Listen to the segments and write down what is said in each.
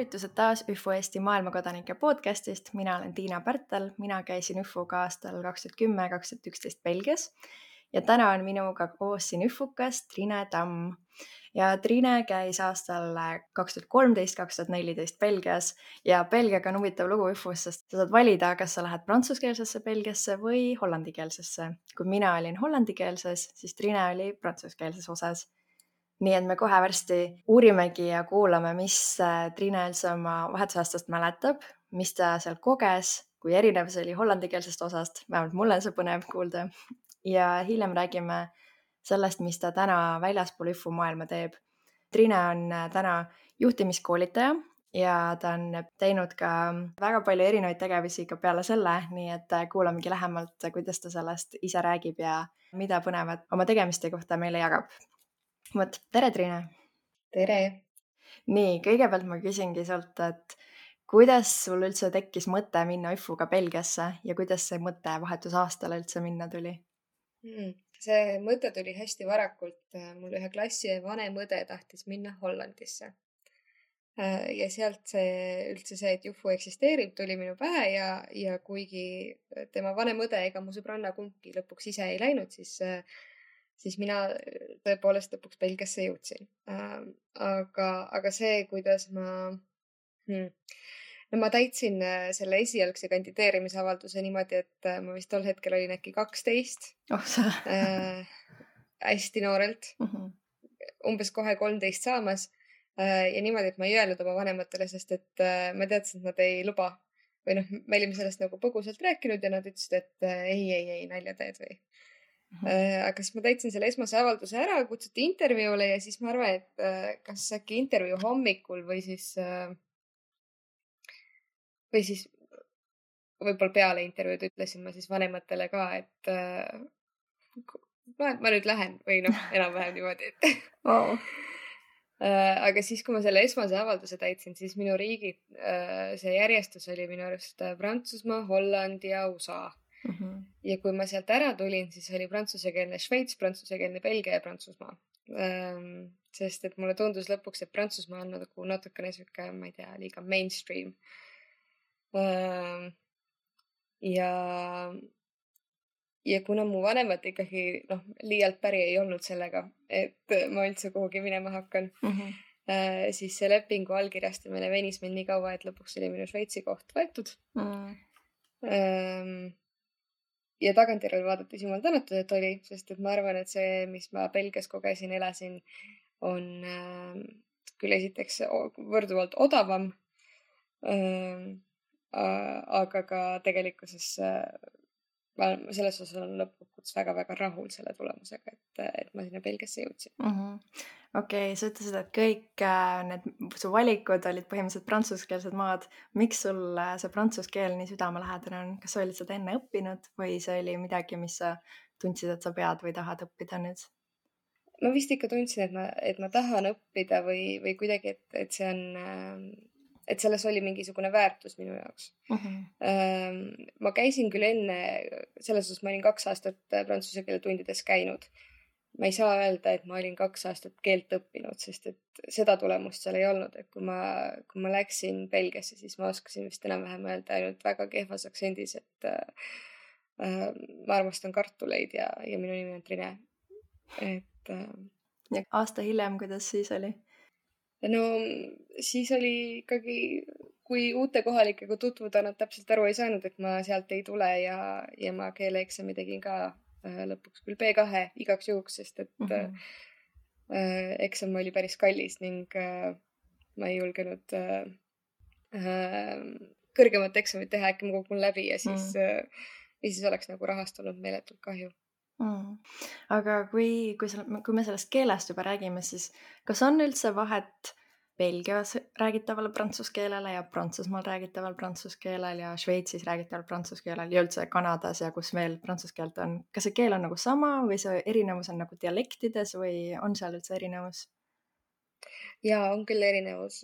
tervitused taas ÜFO Eesti maailmakodanike podcastist. Mina olen Tiina Pärtel, mina käisin ÜFO-ga aastal 2010-2011 Belgias ja täna on minuga koos siin ÜFO-kas Trine Tamm. Ja Trine käis aastal 2013-2014 Belgias ja Belgiaga on huvitav lugu ÜFO-s, sest sa saad valida, kas sa lähed prantsuskeelsesse Belgiasse või hollandikeelsesse. Kui mina olin hollandikeelses, siis Trine oli prantsuskeelses osas. Nii et me kohe varsti uurimegi ja kuulame, mis Trine üldse oma vahetusaastast mäletab, mis ta seal koges, kui erinev see oli hollandikeelsest osast, vähemalt mulle see põnev kuulda. Ja hiljem räägime sellest, mis ta täna väljaspool ÜFO maailma teeb. Trine on täna juhtimiskoolitaja ja ta on teinud ka väga palju erinevaid tegevusi ka peale selle, nii et kuulamegi lähemalt, kuidas ta sellest ise räägib ja mida põnevat oma tegemiste kohta meile jagab. Tere, Trine! Tere! Nii, kõigepealt ma küsingi sult, et kuidas sul üldse tekkis mõte minna ÜFO-ga Belgiasse ja kuidas see mõte vahetusaastale üldse minna tuli? See mõte tuli hästi varakult. Mul ühe klassi vanem õde tahtis minna Hollandisse. Ja sealt üldse see, et ÜFO eksisteerib, tuli minu pähe ja kuigi tema vanem õde ega mu sõbranna kumbki lõpuks ise ei läinud, siis mina tõepoolest lõpuks Belgiasse jõudsin. Aga see, kuidas ma täitsin selle esialgse kandideerimisavalduse niimoodi, et ma vist tol hetkel olin äkki 12. Hästi noorelt. Umbes kohe 13 saamas. Ja niimoodi, et ma ei öelnud oma vanematele, sest et ma teadsin, et nad ei luba. Või me olime sellest nagu põgusalt rääkinud ja nad ütlesid, et ei, nalja teed või. Aga siis ma täitsin selle esmase avalduse ära, kutsuti intervjuule ja siis ma arvan, et kas äkki intervjuu hommikul või siis võib-olla peale intervjuud ütlesin ma siis vanematele ka, et ma nüüd lähen või enam-vähem niimoodi, et Wow. Aga siis, kui ma selle esmase avalduse täitsin, siis minu riigi see järjestus oli minu arust Prantsusmaa, Holland ja USA. Ja kui ma sealt ära tulin, siis oli prantsusekeelne Šveits, prantsusekeelne Belgia ja Prantsusmaa. Sest et mulle tundus lõpuks, et Prantsusmaa on nagu natukene siuke, ma ei tea, liiga mainstream. Ja kuna mu vanemad ikkagi liialt päri ei olnud sellega, et ma üldse kuhugi minema hakkan, siis see lepingu allkirjastamine venis meil nii kaua, et lõpuks oli minu Šveitsi koht võetud. Ja tagantjärele vaadates jumal tänatud, et oli, sest et ma arvan, et see, mis ma Belgias kogesin, elasin, on küll esiteks võrduvalt odavam, aga ka tegelikkuses selles osas on lõpuks väga-väga rahul selle tulemusega, et ma sinna Belgiasse jõudsin. Okei, sa ütlesid, et kõik su valikud olid põhimõtteliselt prantsuskeelsed maad. Miks sul see prantsus keel nii südamelähedane on? Kas sa olid seda enne õppinud või see oli midagi, mis sa tundsid, et sa pead või tahad õppida nüüd? Ma vist ikka tundsin, et ma tahan õppida või kuidagi, et see on... et selles oli mingisugune väärtus minu jaoks. Ma käisin küll enne, selles osas ma olin 2 aastat prantsuse keele tundides käinud. Ma ei saa öelda, et ma olin 2 aastat keelt õppinud, sest et seda tulemust seal ei olnud. Et kui ma läksin Belgiasse, siis ma oskasin vist enam-vähem öelda ainult väga kehvas aktsendis, et ma armastan kartuleid ja minu nimi on Trine. Ja aasta hiljem, kuidas siis oli? No siis oli ikkagi, kui uute kohalikega tutvuda, nad täpselt aru ei saanud, et ma sealt ei tule ja ma keeleeksami tegin ka lõpuks küll B2 igaks juhuks, sest et eksam oli päris kallis ning ma ei julgenud kõrgemat eksamit teha, äkki ma kukun läbi ja siis oleks nagu rahast olnud meeletult kahju. Aga kui me sellest keelest juba räägime, siis kas on üldse vahet Belgias räägitaval prantsuse keelele ja Prantsusmaal räägitaval prantsuse keelel ja Šveitsis räägitaval prantsuse keelel ja üldse Kanadas ja kus veel prantsuse keelt on? Kas see keel on nagu sama või see erinevus on nagu dialektides või on seal üldse erinevus? Jaa, on küll erinevus.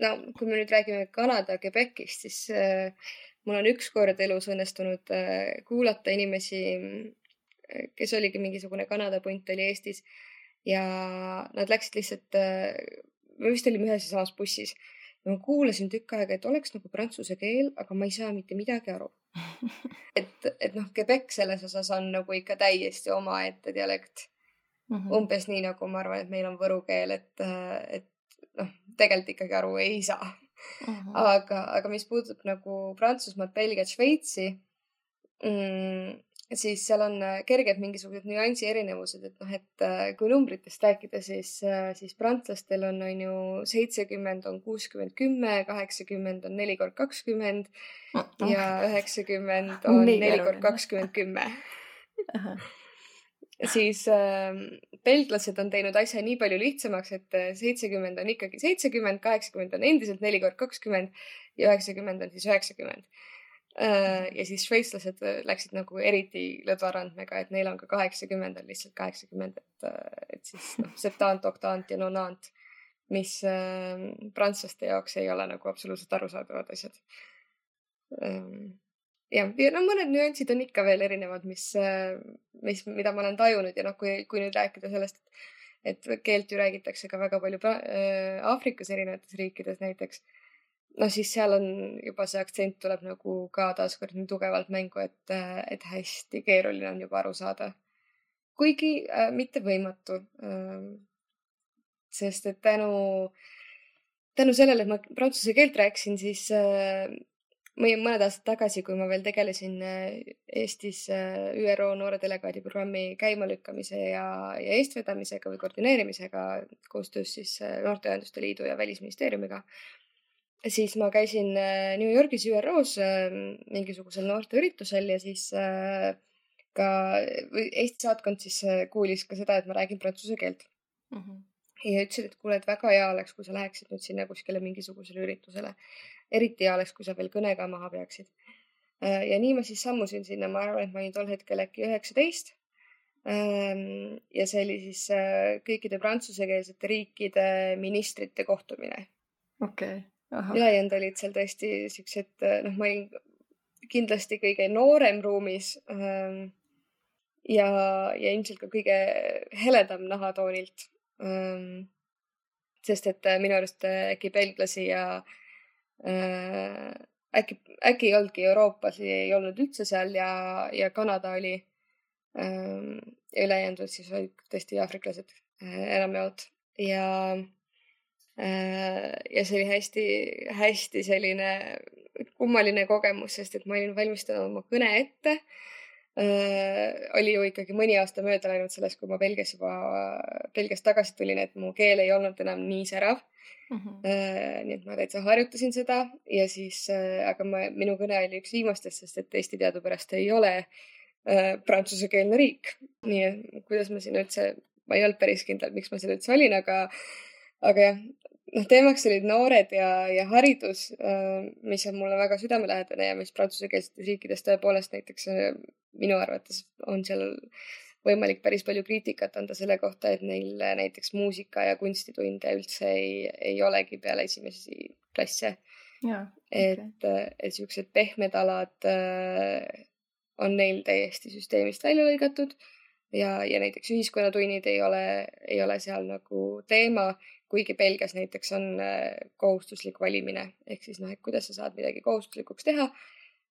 No, kui me nüüd räägime Kanada Quebecist, siis mul on üks kord elus õnnestunud kuulata inimesi, kes oligi mingisugune Kanada punt oli Eestis ja nad läksid lihtsalt, me vist olime ühes ja samas bussis ja ma kuulasin tükk aega, et oleks nagu prantsuse keel, aga ma ei saa mitte midagi aru. et noh, Quebec selles osas on nagu ikka täiesti omaette dialekt. Umbes nii nagu ma arvan, et meil on võru keel, et noh, tegelikult ikkagi aru ei saa. Aga mis puudutab nagu Prantsusmaad, Belgiat, Šveitsi, siis seal on kerged mingisugused nüansi erinevused, et noh, et kui numbritest rääkida, siis prantslastel on ju 70 on 60, 10, 80 on 4x20 ja 90 on 4x20, 10. Siis belglased on teinud asja nii palju lihtsamaks, et 70 on ikkagi 70, 80 on endiselt 4x20 ja 90 on siis 90. Ja siis šveitslased läksid nagu eriti lõdvarandmega, et neil on ka 80 on lihtsalt 80, et siis noh, septant, oktant ja nonant, mis prantslaste jaoks ei ole nagu absoluutselt arusaadavad asjad. Ja no mõned nüansid on ikka veel erinevad, mida ma olen tajunud ja noh, kui nüüd rääkida sellest, et keelt ju räägitakse ka väga palju Aafrikas erinevates riikides näiteks, no siis seal on juba see aktsent tuleb nagu ka taaskord nii tugevalt mängu, et hästi keeruline on juba aru saada. Kuigi mitte võimatu. Sest et tänu sellele, et ma prantsuse keelt rääkisin, siis mõned aastad tagasi, kui ma veel tegelesin Eestis ÜRO noore delegaadi programmi käimalükkamise ja eestvedamisega või koordineerimisega koostöös siis Noorteühenduste Liidu ja Välisministeeriumiga, siis ma käisin New Yorgis ÜROs mingisugusel noorteüritusel ja siis ka Eesti saatkond siis kuulis ka seda, et ma räägin prantsuse keelt. Ja ütlesid, et kuule, et väga hea oleks, kui sa läheksid nüüd sinna kuskile mingisugusele üritusele. Eriti hea oleks, kui sa veel kõne ka maha peaksid. Ja nii ma siis sammusin sinna, ma arvan, et ma olin tol hetkel äkki 19. Ja see oli siis kõikide prantsusekeelsete riikide ministrite kohtumine. Okei. Ülejäänud olid seal tõesti siuksed, noh, ma olin kindlasti kõige noorem ruumis ja ilmselt ka kõige heledam nahatoonilt. Sest et minu arust äkki belglasi ja äkki ei olnudki Euroopas, ei olnud üldse seal ja Kanada oli ja ülejäänud siis olid tõesti aafriklased enamjaolt ja see oli hästi selline kummaline kogemus, sest et ma olin valmistanud oma kõne ette. Oli ju ikkagi mõni aasta mööda läinud sellest, kui ma Belgiast tagasi tulin, et mu keel ei olnud enam nii särav. Nii et ma täitsa harjutasin seda ja siis, aga minu kõne oli üks viimastest, sest et Eesti teadupärast ei ole prantsusekeelne riik. Nii et kuidas ma siin üldse, ma ei olnud päris kindel, miks ma seal üldse olin, aga jah, teemaks olid noored ja haridus, mis on mulle väga südamelähedane ja mis prantsusekeelsetes riikides tõepoolest näiteks minu arvates on seal võimalik päris palju kriitikat anda selle kohta, et neil näiteks muusika ja kunstitunde üldse ei olegi peale esimesi klasse. Et siuksed pehmed alad on neil täiesti süsteemist välja lõigatud ja näiteks ühiskonnatunnid ei ole seal nagu teema, kuigi Belgias näiteks on kohustuslik valimine. Ehk siis et kuidas sa saad midagi kohustuslikuks teha,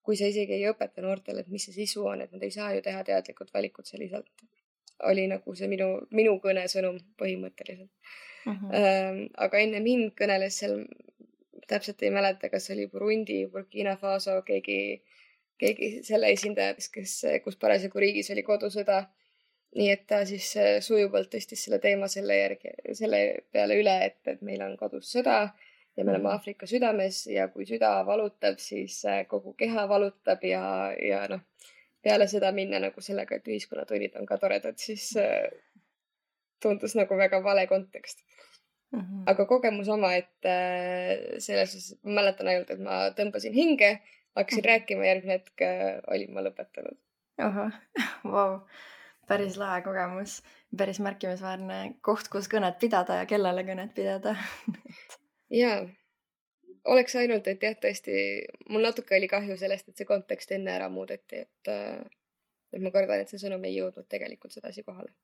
kui sa isegi ei õpeta noortele, et mis see sisu on, et nad ei saa ju teha teadlikud valikud selliselt. Oli nagu see minu kõne sõnum põhimõtteliselt. Aga enne mind kõneles seal, täpselt ei mäleta, kas oli Burundi, Burkina Faso, keegi selle esindaja, kus parasjagu riigis oli kodusõda. Nii et ta siis sujuvalt tõstis selle teema selle peale üle, et meil on kodus sõda ja me oleme Aafrika südames ja kui süda valutab, siis kogu keha valutab ja noh, peale seda minna nagu sellega, et ühiskonnatunnid on ka toredad, siis tundus nagu väga vale kontekst. Aga kogemus oma, et selles osas ma mäletan ainult, et ma tõmbasin hinge, hakkasin rääkima, järgmine hetk olin ma lõpetanud. Vau. Päris lahe kogemus, päris märkimisväärne koht, kus kõnet pidada ja kellele kõnet pidada. Jaa, oleks ainult, et jah, tõesti, mul natuke oli kahju sellest, et see kontekst enne ära muudeti, et ma kardan, et see sõnum ei jõudnud tegelikult sedasi kohale.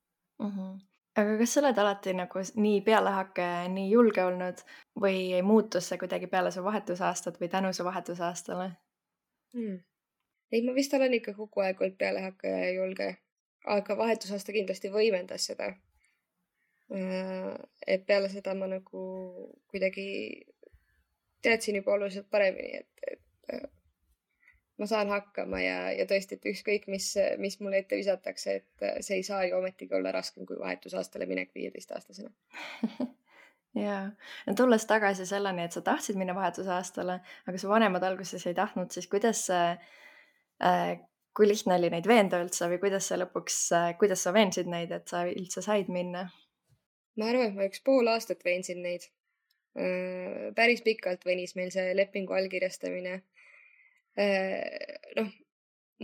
aga kas sa oled alati nagu nii pealehakkaja ja nii julge olnud või muutus see kuidagi peale su vahetusaastat või tänu su vahetusaastale? Ei, ma vist olen ikka kogu aeg olnud pealehakkaja ja julge, aga vahetusaasta kindlasti võimendas seda. Et peale seda ma nagu kuidagi teadsin juba oluliselt paremini, et ma saan hakkama ja tõesti, et ükskõik, mis mulle ette visatakse, et see ei saa ju ometigi olla raskem kui vahetusaastale minek 15-aastasena. Jaa, no tulles tagasi selleni, et sa tahtsid minna vahetusaastale, aga su vanemad alguses ei tahtnud, siis kuidas kui lihtne oli neid veenda üldse või kuidas sa veensid neid, et sa üldse said minna? Ma arvan, et ma 1,5 aastat veensin neid. Päris pikalt venis meil see lepingu allkirjastamine. Noh,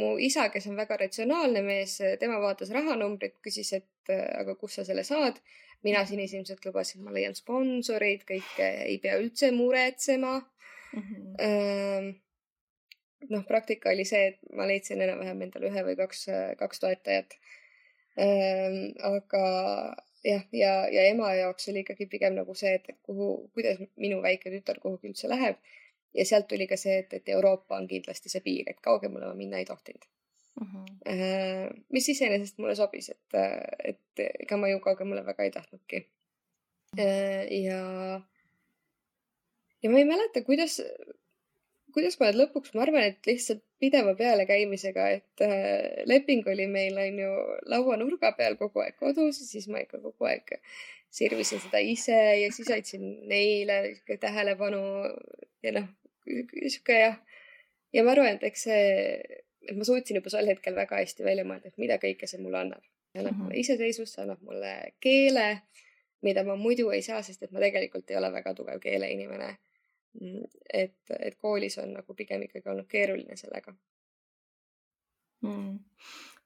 mu isa, kes on väga ratsionaalne mees, tema vaatas rahanumbrit, küsis, et aga kus sa selle saad. Mina sinisilmselt lubasin, ma leian sponsorid, kõike ei pea üldse muretsema. Noh, praktika oli see, et ma leidsin enam-vähem endale 1 või 2 toetajat. Aga jah, ja ema jaoks oli ikkagi pigem nagu see, et kuidas minu väike tütar kuhugi üldse läheb. Ja sealt tuli ka see, et Euroopa on kindlasti see piir, et kaugemale ma minna ei tohtinud. Mis iseenesest mulle sobis, et ega ma ju kaugemale väga ei tahtnudki. Ja ma ei mäleta, kuidas ma lõpuks, ma arvan, et lihtsalt pideva peale käimisega, et leping oli meil on ju lauanurga peal kogu aeg kodus ja siis ma ikka kogu aeg sirvisin seda ise ja siis aitsin neile tähelepanu ja noh, sihuke jah. Ja ma arvan, et eks et ma suutsin juba sel hetkel väga hästi välja mõelda, et mida kõike see mulle annab. Annab mulle iseseisvust, annab mulle keele, mida ma muidu ei saa, sest et ma tegelikult ei ole väga tugev keeleinimene. Et koolis on nagu pigem ikkagi olnud keeruline sellega.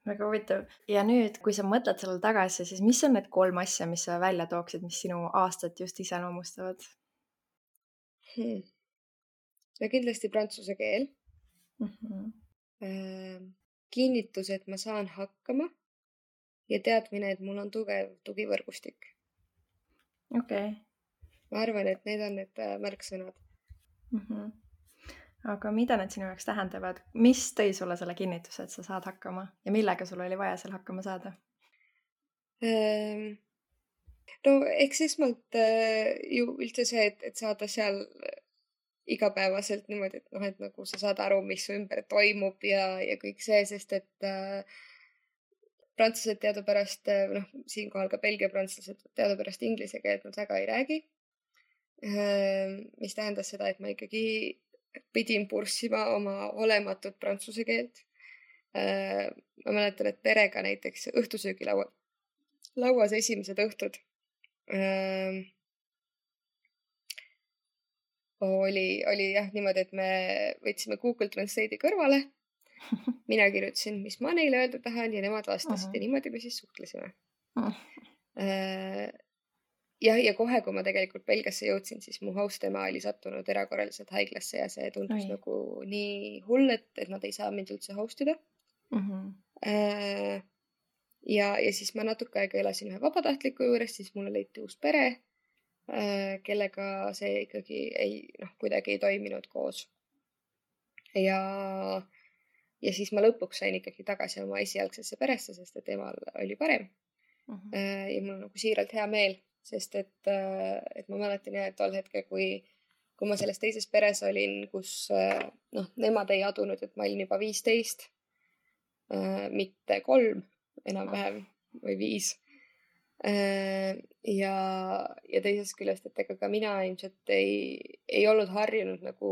Väga huvitav. Ja nüüd, kui sa mõtled sellele tagasi, siis mis on need 3 asja, mis sa välja tooksid, mis sinu aastat just iseloomustavad? Ja kindlasti prantsuse keel. Kinnitus, et ma saan hakkama ja teadmine, et mul on tugev tugivõrgustik. Okay. Ma arvan, et need on need märksõnad. Aga mida need sinu jaoks tähendavad? Mis tõi sulle selle kinnituse, et sa saad hakkama ja millega sul oli vaja seal hakkama saada? No eks esmalt ju üldse see, et saada seal igapäevaselt niimoodi, et noh, et nagu sa saad aru, mis su ümber toimub ja kõik see, sest et prantslased teadupärast, noh, siinkohal ka Belgia prantslased teadupärast inglise keelt nad väga ei räägi. Mis tähendas seda, et ma ikkagi pidin purssima oma olematut prantsuse keelt. Ma mäletan, et perega näiteks õhtusöögilauas esimesed õhtud oli jah niimoodi, et me võtsime Google Translate'i kõrvale. Mina kirjutasin, mis ma neile öelda tahan ja nemad vastasid ja niimoodi me siis suhtlesime. Ja kohe, kui ma tegelikult Belgiasse jõudsin, siis mu host ema oli sattunud erakorraliselt haiglasse ja see tundus nagu nii hull, et nad ei saa mind üldse hostida. Ja siis ma natuke aega elasin ühe vabatahtliku juures, siis mulle leiti uus pere, kellega see ikkagi kuidagi ei toiminud koos. Ja siis ma lõpuks sain ikkagi tagasi oma esialgsesse peresse, sest et emal oli parem. Ja mul on nagu siiralt hea meel, sest et ma mäletan jah, et tol hetkel, kui ma selles teises peres olin, kus nemad ei adunud, et ma olin juba 15, mitte 3 enam-vähem või 5. Ja teisest küljest, et ega ka mina ilmselt ei olnud harjunud nagu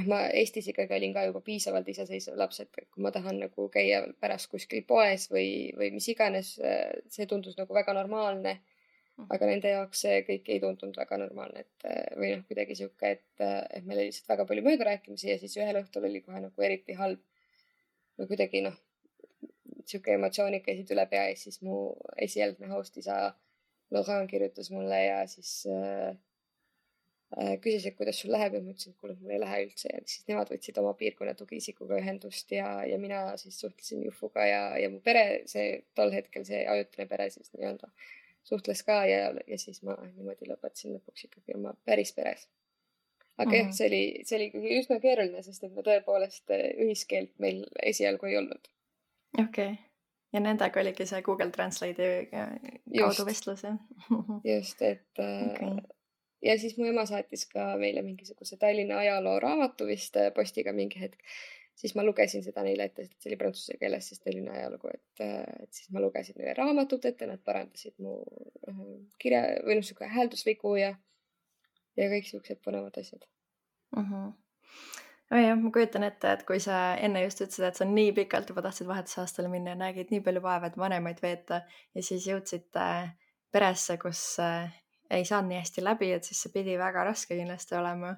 ma Eestis ikkagi olin ka juba piisavalt iseseisev laps, et kui ma tahan nagu käia pärast kuskil poes või mis iganes, see tundus nagu väga normaalne. Aga nende jaoks see kõik ei tundunud väga normaalne, või kuidagi sihuke, et meil oli lihtsalt väga palju möödarääkimisi ja siis ühel õhtul oli kohe nagu eriti halb või kuidagi sihuke emotsioonid käisid üle pea ja siis mu esialgne host isa Laurent kirjutas mulle ja siis küsisid, kuidas sul läheb ja ma ütlesin, et kuule, mul ei lähe üldse ja siis nemad võtsid oma piirkonna tugiisikuga ühendust ja mina siis suhtlesin Jufuga ja mu pere, tol hetkel see ajutine pere siis nii-öelda suhtles ka ja siis ma niimoodi lõpetasin lõpuks ikkagi oma päris peres. Aga jah, see oli ikkagi üsna keeruline, sest et me tõepoolest ühiskeelt meil esialgu ei olnud. Okei. Ja nendega oligi see Google Translate'i kaudu vestlus, jah? Just, et ja siis mu ema saatis ka meile mingisuguse Tallinna ajaloo raamatu vist postiga mingi hetk. Siis ma lugesin seda neile ette, sest see oli prantsuse keeles siis Tallinna ajalugu, et siis ma lugesin neile raamatut ette, nad parandasid mu kirja või niisugune hääldusvigu ja kõik siuksed põnevad asjad. Jah, ma kujutan ette, et kui sa enne just ütlesid, et sa nii pikalt juba tahtsid vahetusaastale minna ja nägid nii palju vaeva, et vanemaid veeta ja siis jõudsid peresse, kus ei saanud nii hästi läbi, et siis see pidi väga raske kindlasti olema.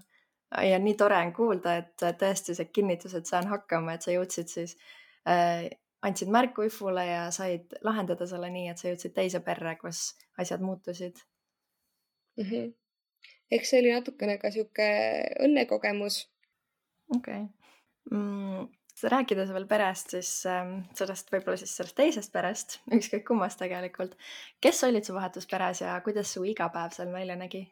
Ja nii tore on kuulda, et tõesti see kinnitus, et saan hakkama, et sa jõudsid siis, andsid märku Ifule ja said lahendada selle nii, et sa jõudsid teise perre, kus asjad muutusid. Eks see oli natukene ka siuke õnnekogemus. Okei. Rääkides veel perest, siis sellest võib-olla siis sellest teisest perest, ükskõik kummast tegelikult. Kes olid su vahetusperes ja kuidas su igapäev seal välja nägi?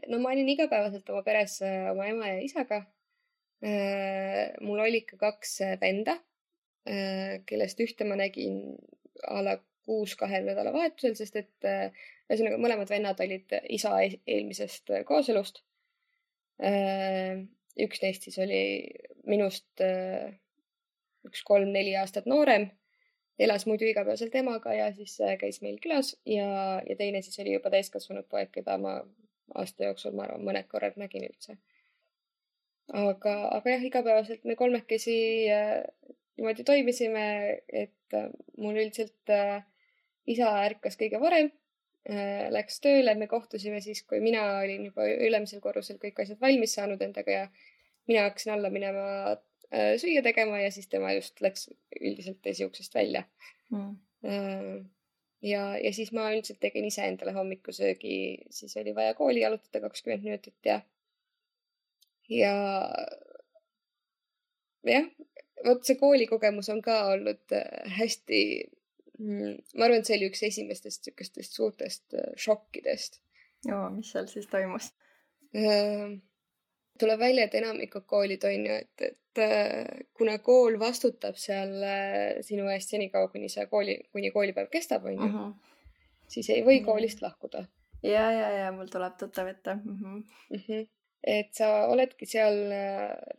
No ma olin igapäevaselt oma peres oma ema ja isaga. Mul oli ka 2 venda, kellest ühte ma nägin a la 6 nädalavahetusel, sest et ühesõnaga mõlemad vennad olid isa eelmisest kooselust. Üks neist siis oli minust 3-4 aastat noorem, elas muidu igapäevaselt emaga ja siis käis meil külas ja teine siis oli juba täiskasvanud poeg, keda ma aasta jooksul, ma arvan, mõned korrad nägin üldse. Aga jah, igapäevaselt me kolmekesi niimoodi toimisime, et mul üldiselt isa ärkas kõige varem, läks tööle, me kohtusime siis, kui mina olin juba ülemisel korrusel kõik asjad valmis saanud endaga ja mina hakkasin alla minema süüa tegema ja siis tema just läks üldiselt esiuksest välja. Ja siis ma üldiselt tegin ise endale hommikusöögi, siis oli vaja kooli jalutada 20 minutit ja jah, vot see koolikogemus on ka olnud hästi, ma arvan, et see oli üks esimestest sükestest suurtest šokkidest. Joo, mis seal siis toimus? Tuleb välja, et enamikud koolid on ju, et kuna kool vastutab seal sinu eest senikaua, kuni koolipäev kestab, on ju, siis ei või koolist lahkuda. Ja, mul tuleb tuttav ette. Et sa oledki seal,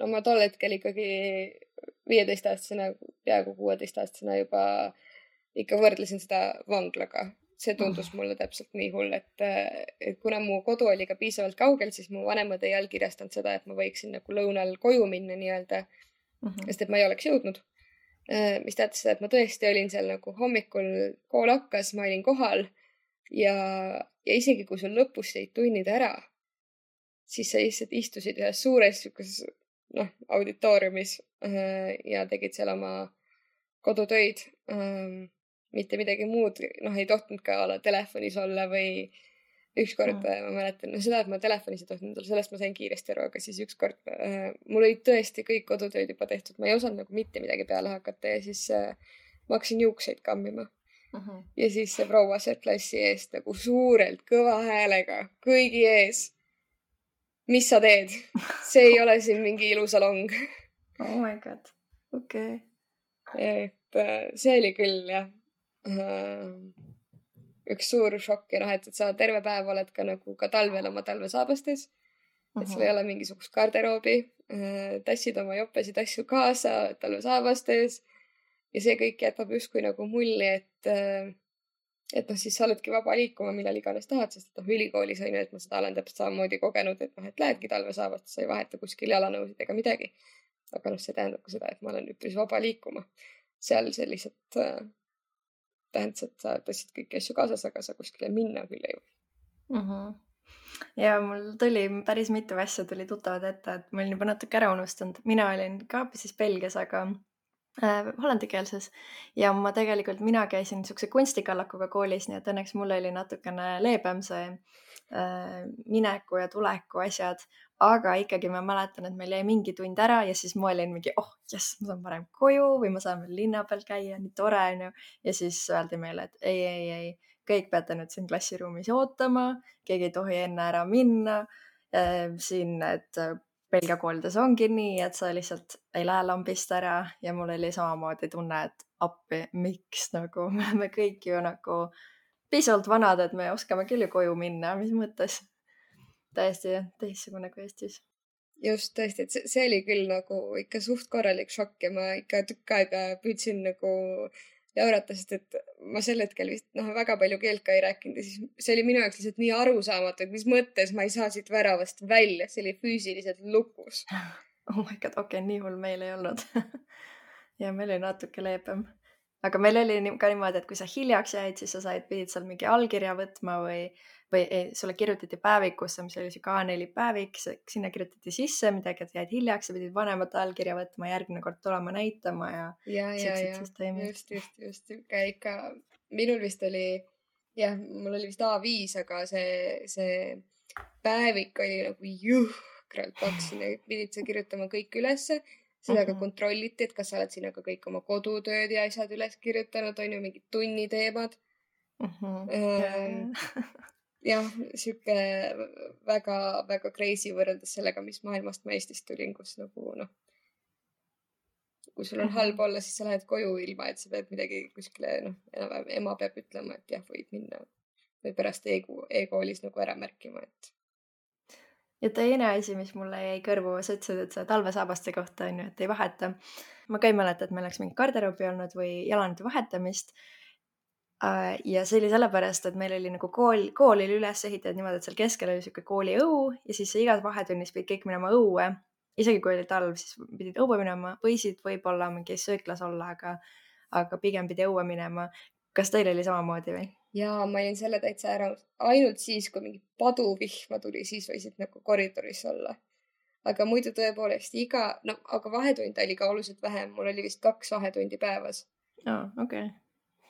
no ma tol hetkel ikkagi 15-aastasena, peaaegu 16-aastasena juba ikka võrdlesin seda vanglaga. See tundus mulle täpselt nii hull, et kuna mu kodu oli ka piisavalt kaugel, siis mu vanemad ei allkirjastanud seda, et ma võiksin nagu lõunal koju minna nii-öelda, sest et ma ei oleks jõudnud. Mis tähendab seda, et ma tõesti olin seal nagu hommikul, kool hakkas, ma olin kohal ja isegi kui sul lõpus jäid tunnid ära, siis sa lihtsalt istusid ühes suures auditooriumis ja tegid seal oma kodutöid. Mitte midagi muud, ei tohtinud ka olla telefonis olla või ükskord ma mäletan, seda, et ma telefonis ei tohtinud olla, sellest ma sain kiiresti aru, aga siis ükskord mul olid tõesti kõik kodutööd juba tehtud, ma ei osanud nagu mitte midagi peale hakata ja siis ma hakkasin juukseid kammima. Ja siis see proua sealt klassi eest nagu suurelt kõva häälega kõigi ees. Mis sa teed? See ei ole siin mingi ilusalong. Oh my god, okei. Et see oli küll jah. Üks suur šokk ja et sa terve päev oled ka nagu ka talvel oma talvesaabastes, et sul ei ole mingisugust garderoobi, tassid oma jopesid asju kaasa talvesaabastes ja see kõik jätab justkui nagu mulli, et siis sa oledki vaba liikuma millal iganes tahad, sest ülikoolis on ju, et ma seda olen täpselt samamoodi kogenud, et lähedki talvesaabastes, sa ei vaheta kuskil jalanõusid ega midagi. Aga see tähendab ka seda, et ma olen üpris vaba liikuma. Seal see lihtsalt tähendas, et sa tõstsid kõiki asju kaasas, aga sa kuskile minna küll ei või. Ja mul tuli päris mitu asja tuli tuttavad ette, et ma olin juba natuke ära unustanud. Mina olin ka siis Belgias, aga hollandikeelses ja mina käisin niisuguse kunstikallakuga koolis, nii et õnneks mul oli natukene leebem see mineku ja tuleku asjad, aga ikkagi ma mäletan, et meil jäi mingi tund ära ja siis ma olin mingi, jess, ma saan varem koju või ma saan veel linna peal käia, nii tore on ju. Ja siis öeldi meile, et ei, kõik peate nüüd siin klassiruumis ootama, keegi ei tohi enne ära minna. Siin, et Belgia koolides ongi nii, et sa lihtsalt ei lähe lambist ära ja mul oli samamoodi tunne, et appi, miks nagu me oleme kõik ju nagu piisavalt vanad, et me oskame küll ju koju minna, mis mõttes. Täiesti teistsugune kui Eestis. Just tõesti, et see oli küll nagu ikka suht korralik šokk ja ma ikka tükk aega püüdsin nagu jaurata, sest et ma sel hetkel vist väga palju keelt ka ei rääkinud ja siis see oli minu jaoks lihtsalt nii arusaamatu, et mis mõttes ma ei saa siit väravast välja, see oli füüsiliselt lukus. Oh my god, okei, nii hull meil ei olnud. Ja meil oli natuke leebem. Aga meil oli ka niimoodi, et kui sa hiljaks jäid, siis sa pidid seal mingi allkirja võtma või sulle kirjutati päevikusse, mis oli siuke A4 päevik, sinna kirjutati sisse midagi, et jäid hiljaks ja pidid vanemate allkirja võtma, järgmine kord tulema näitama ja siuksed süsteemid. Just, ikka minul vist oli, mul oli vist A5, aga see päevik oli nagu jõhkralt paks, sinna pidid sa kirjutama kõik ülesse. Seda ka kontrolliti, et kas sa oled sinna ka kõik oma kodutööd ja asjad üles kirjutanud, on ju mingid tunniteemad. Jah, siuke väga crazy võrreldes sellega, mis maailmast ma Eestist tulin, kus nagu kui sul on halb olla, siis sa lähed koju ilma, et sa pead midagi kuskile, enam-vähem ema peab ütlema, et jah, võid minna või pärast e-koolis nagu ära märkima, et. Ja teine asi, mis mulle jäi kõrvu, sa ütlesid, et sa talvesaabaste kohta on ju, et ei vaheta. Ma ka ei mäleta, et meil oleks mingi garderoobi olnud või jalanide vahetamist. Ja see oli sellepärast, et meil oli nagu kool oli üles ehitatud niimoodi, et seal keskel oli siuke kooli õu ja siis igas vahetunnis pidid kõik minema õue. Isegi kui oli talv, siis pidid õue minema, võisid võib-olla mingi sööklas olla, aga pigem pidi õue minema. Kas teil oli samamoodi või? Jaa, ma olin selle täitsa ära. Ainult siis, kui mingi paduvihma tuli, siis võisid nagu koridoris olla. Aga muidu tõepoolest aga vahetund oli ka oluliselt vähem. Mul oli vist 2 vahetundi päevas. Okay.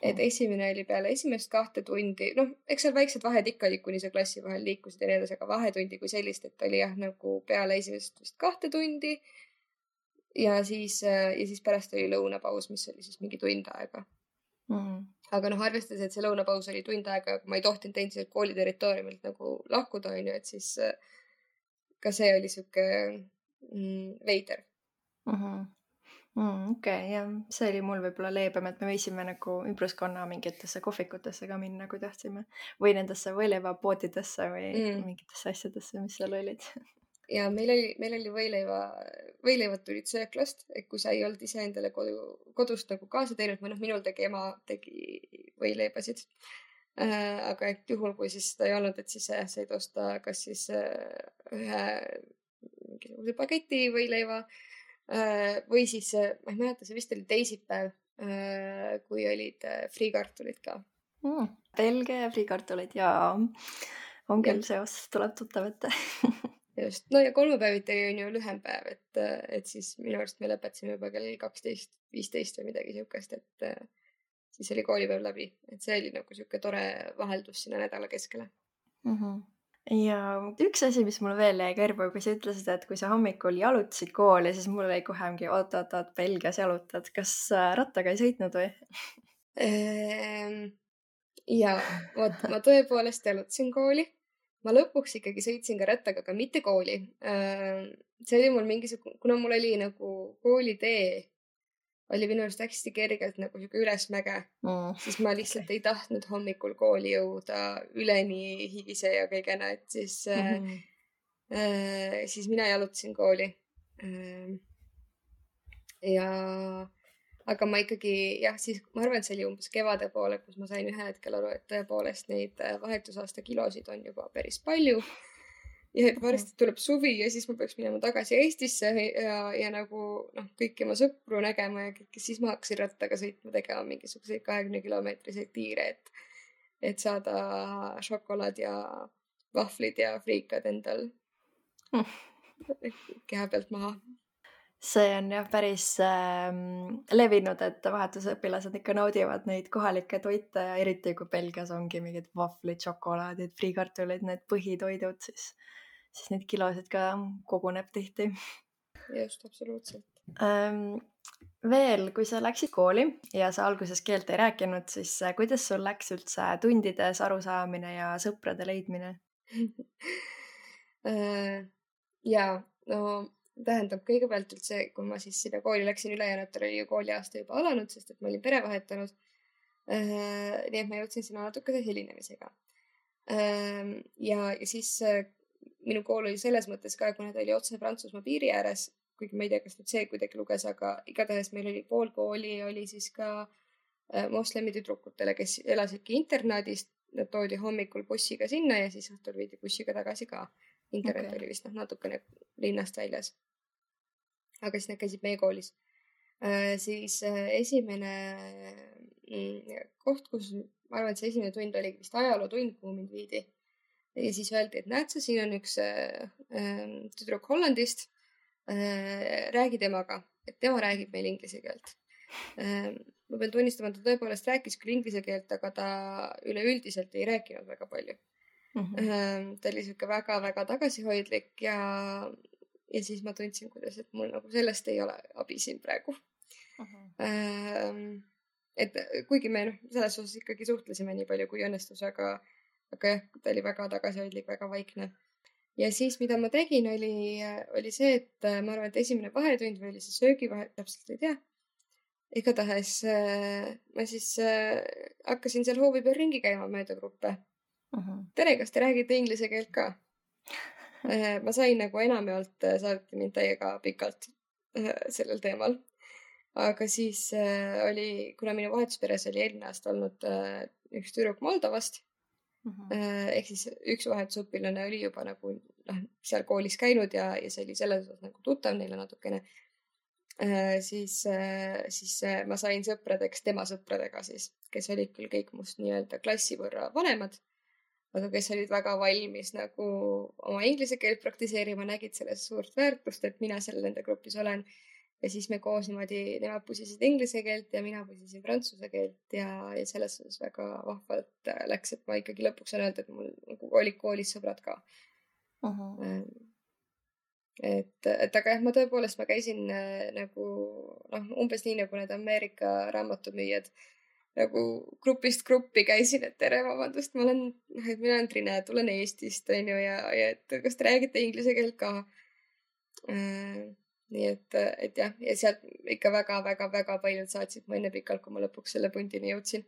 Et esimene oli peale esimest 2 tundi. Eks seal väiksed vahed ikka oli, kuni sa klassi vahel liikusid ja nii edasi, aga vahetundi kui sellist, et oli nagu peale esimest vist 2 tundi. Ja siis pärast oli lõunapaus, mis oli siis mingi tund aega. Aga arvestades, et see lõunapaus oli tund aega, aga ma ei tohtinud endiselt kooli territooriumilt nagu lahkuda, on ju, et siis ka see oli siuke veider. Okei, jah, see oli mul võib-olla leebem, et me võisime nagu ümbruskonna mingitesse kohvikutesse ka minna, kui tahtsime. Või nendesse võileivapoodidesse või mingitesse asjadesse, mis seal olid. Ja meil oli võileivad tulid sööklast, et kui sa ei olnud ise endale kodust nagu kaasa teinud, või minul ema tegi võileibasid. Aga et juhul, kui siis seda ei olnud, et siis said osta kas siis ühe mingisuguse paketi võileiva või siis, ma ei mäleta, see vist oli teisipäev, kui olid friikartulid ka. Belgia ja friikartulid ja on küll seos, tuleb tuttav ette. Just, ja kolmapäeviti on ju lühem päev, et siis minu arust me lõpetasime juba kell 12:15 või midagi siukest, et siis oli koolipäev läbi, et see oli nagu siuke tore vaheldus sinna nädala keskele. Ja üks asi, mis mulle veel jäi kõrvu, kui sa ütlesid, et kui sa hommikul jalutasid kooli, siis mul oli kohe mingi oot, Belgias jalutad. Kas rattaga ei sõitnud või? Ja vot, ma tõepoolest jalutasin kooli. Ma lõpuks ikkagi sõitsin ka rattaga, aga mitte kooli. See oli mul kuna mul oli nagu koolitee, oli minu arust hästi kergelt nagu siuke ülesmäge, siis ma lihtsalt ei tahtnud hommikul kooli jõuda üleni higise ja kõigena, et siis mina jalutasin kooli. Aga ma ikkagi, siis ma arvan, et see oli umbes kevade poole, kus ma sain ühel hetkel aru, et tõepoolest neid vahetusaasta kilosid on juba päris palju. Ja et varsti tuleb suvi ja siis ma peaks minema tagasi Eestisse ja nagu kõiki oma sõpru nägema ja kõike, siis ma hakkasin rattaga sõitma, tegema mingisuguseid 20-kilomeetriseid tiire, et saada šokolaad ja vahvlid ja friikad endal keha pealt maha. see on jah päris levinud, et vahetusõpilased ikka naudivad neid kohalikke toite ja eriti kui Belgias ongi mingid vahvlid, šokolaadid, friikartulid, need põhitoidud, siis neid kilosid ka koguneb tihti. Just, absoluutselt. Veel, kui sa läksid kooli ja sa alguses keelt ei rääkinud, siis kuidas sul läks üldse tundides arusaamine ja sõprade leidmine? Jaa, no tähendab kõigepealt üldse, kui ma siis sinna kooli läksin, ülejäänutel oli ju kooliaasta juba alanud, sest et ma olin pere vahetanud. Nii et ma jõudsin sinna natukese hilinemisega. Ja siis minu kool oli selles mõttes ka, kuna ta oli otse Prantsusmaa piiri ääres, kuigi ma ei tea, kas nüüd see kuidagi luges, aga igatahes meil oli pool kooli oli siis ka moslemi tüdrukutele, kes elasidki internaadist. Nad toodi hommikul bussiga sinna ja siis õhtul viidi bussiga tagasi ka. Internet oli vist natukene linnast väljas. Aga siis nad käisid meie koolis. Siis esimene koht, kus ma arvan, et see esimene tund oli vist ajalootund, kuhu mind viidi. Ja siis öeldi, et näed sa, siin on üks tüdruk Hollandist. Räägi temaga, et tema räägib meil inglise keelt. Ma pean tunnistama, ta tõepoolest rääkis küll inglise keelt, aga ta üleüldiselt ei rääkinud väga palju. Ta oli siuke väga-väga tagasihoidlik ja siis ma tundsin, kuidas, et mul nagu sellest ei ole abi siin praegu. Et kuigi me selles osas ikkagi suhtlesime nii palju kui õnnestus, aga jah, ta oli väga tagasihoidlik, väga vaikne. Ja siis, mida ma tegin, oli see, et ma arvan, et esimene vahetund või oli see söögivahe, täpselt ei tea. Igatahes ma siis hakkasin seal hoovi peal ringi käima mööda gruppe. Tere, kas te räägite inglise keelt ka? Ma sain nagu enamjaolt saadeti mind täiega pikalt sellel teemal. Aga siis oli, kuna minu vahetusperes oli eelmine aasta olnud üks tüdruk Moldovast, ehk siis üks vahetusõpilane oli juba nagu seal koolis käinud ja see oli selles osas nagu tuttav neile natukene. Siis ma sain sõpradeks tema sõpradega siis, kes olid küll kõik must nii-öelda klassi võrra vanemad, aga kes olid väga valmis nagu oma inglise keelt praktiseerima, nägid selles suurt väärtust, et mina seal nende grupis olen. Ja siis me koos niimoodi, nemad pusisid inglise keelt ja mina pusisin prantsuse keelt ja selles osas väga vahvalt läks, et ma ikkagi lõpuks on öelda, et mul nagu olid koolis sõbrad ka. Aga jah, ma tõepoolest, ma käisin nagu umbes nii nagu need Ameerika raamatumüüjad nagu grupist gruppi käisin, et tere, vabandust, mina olen Trine, tulen Eestist, on ju, ja et kas te räägite inglise keelt ka? Nii et jah, ja sealt ikka väga paljud saatsid mu enne pikalt, kui ma lõpuks selle puntini jõudsin.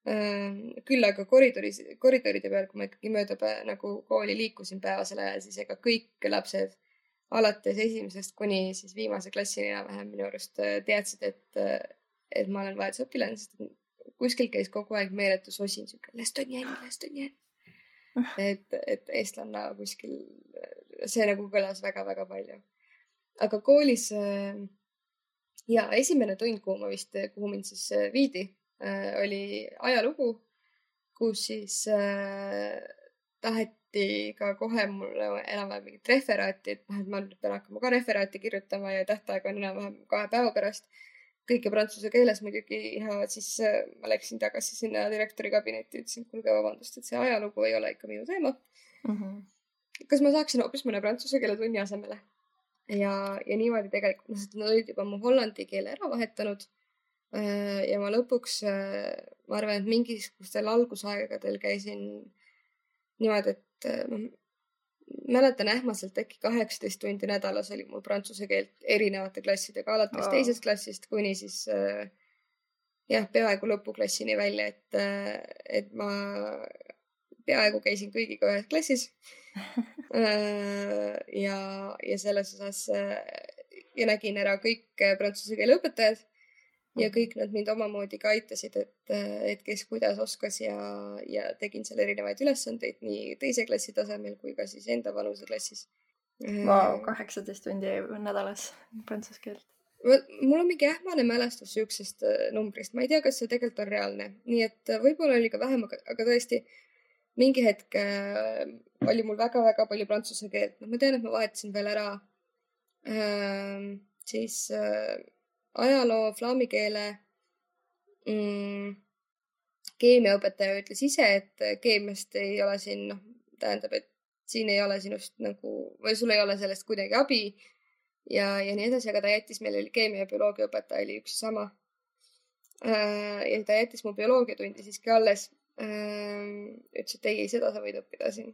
Küll aga koridoride peal, kui ma ikkagi mööda nagu kooli liikusin päevasel ajal, siis ega kõik lapsed alates esimesest kuni siis viimase klassini enam-vähem minu arust teadsid, et ma olen vahetusõpilane, sest kuskil käis kogu aeg meeletu sosin, siuke Lestonjen. Et eestlanna kuskil, see nagu kõlas väga palju. Aga koolis ja esimene tund, kuhu mind siis viidi, oli ajalugu, kus siis taheti ka kohe mulle enam-vähem mingit referaati, et ma pean hakkama ka referaati kirjutama ja tähtaeg on enam-vähem 2 päeva pärast. Kõike prantsuse keeles muidugi ja siis ma läksin tagasi sinna direktori kabinetti ja ütlesin, kuulge vabandust, et see ajalugu ei ole ikka minu teema. Kas ma saaksin hoopis mõne prantsuse keele tunni asemele? Ja niimoodi tegelikult, nad olid juba mu hollandi keele ära vahetanud ja ma lõpuks, ma arvan, et mingisugustel algusaegadel käisin niimoodi, et mäletan ähmaselt äkki 18 tundi nädalas oli mul prantsuse keelt erinevate klassidega, alates teisest klassist kuni siis peaaegu lõpuklassini välja, et ma peaaegu käisin kõigiga ühes klassis ja selles osas ja nägin ära kõik prantsuse keele õpetajad ja kõik nad mind omamoodi ka aitasid, et kes kuidas oskas ja tegin seal erinevaid ülesandeid nii teise klassi tasemel kui ka siis enda vanuse klassis. 18 tundi nädalas prantsuse keelt. Mul on mingi ähmane mälestus siuksest numbrist. Ma ei tea, kas see tegelikult on reaalne. Nii et võib-olla oli ka vähem, aga tõesti mingi hetk oli mul väga palju prantsuse keelt. Ma tean, et ma vahetasin veel ära siis ajaloo, flaami keele keemiaõpetaja ütles ise, et keemiast ei ole siin, tähendab, et siin ei ole sinust nagu, või sul ei ole sellest kuidagi abi ja nii edasi, aga ta jättis, meil oli keemia ja bioloogia õpetaja oli üks sama. Ja ta jättis mu bioloogiatundi siiski alles. Ütles, et ei, seda sa võid õppida siin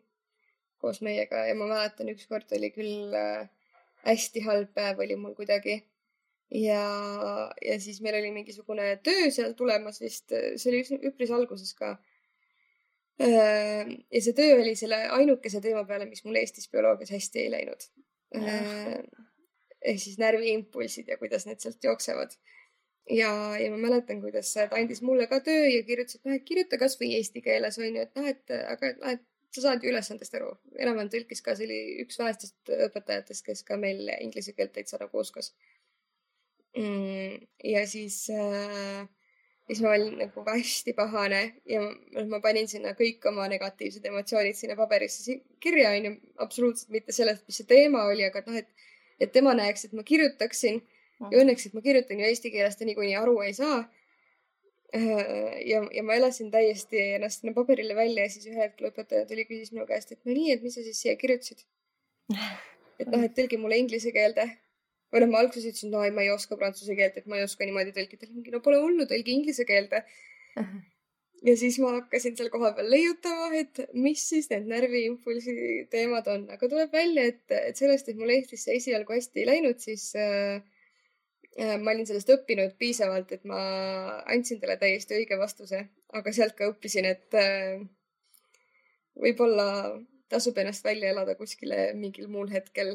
koos meiega ja ma mäletan, ükskord oli küll hästi halb päev oli mul kuidagi. Ja siis meil oli mingisugune töö seal tulemas vist, see oli üpris alguses ka. Ja see töö oli selle ainukese teema peale, mis mul Eestis bioloogias hästi ei läinud. Ehk siis närviimpulsid ja kuidas need sealt jooksevad. Ja ma mäletan, kuidas ta andis mulle ka töö ja kirjutas, et kirjuta kas või eesti keeles, on ju, et aga sa saad ju ülesandest aru. Enam-vähem tõlkis ka, see oli üks vähestest õpetajatest, kes ka meil inglise keelt täitsa nagu oskas. Ja siis ma olin nagu hästi pahane ja ma panin sinna kõik oma negatiivsed emotsioonid sinna paberisse kirja, on ju, absoluutselt mitte sellest, mis see teema oli, aga et tema näeks, et ma kirjutaksin. Ja õnneks, et ma kirjutan ju eesti keeles, ta niikuinii aru ei saa. Ja ma elasin täiesti ennast sinna paberile välja ja siis ühe hetkel õpetaja tuli küsis minu käest, et no nii, et mis sa siis siia kirjutasid? Et tõlgi mulle inglise keelde. Või ma alguses ütlesin, no ma ei oska prantsuse keelt, et ma ei oska niimoodi tõlkida. No pole hullu, tõlgi inglise keelde. Ja siis ma hakkasin seal koha peal leiutama, et mis siis need närviimpulsi teemad on. Aga tuleb välja, et sellest, et mul Eestis see esialgu hästi ei läinud, siis ma olin sellest õppinud piisavalt, et ma andsin talle täiesti õige vastuse, aga sealt ka õppisin, et võib-olla tasub ennast välja elada kuskile mingil muul hetkel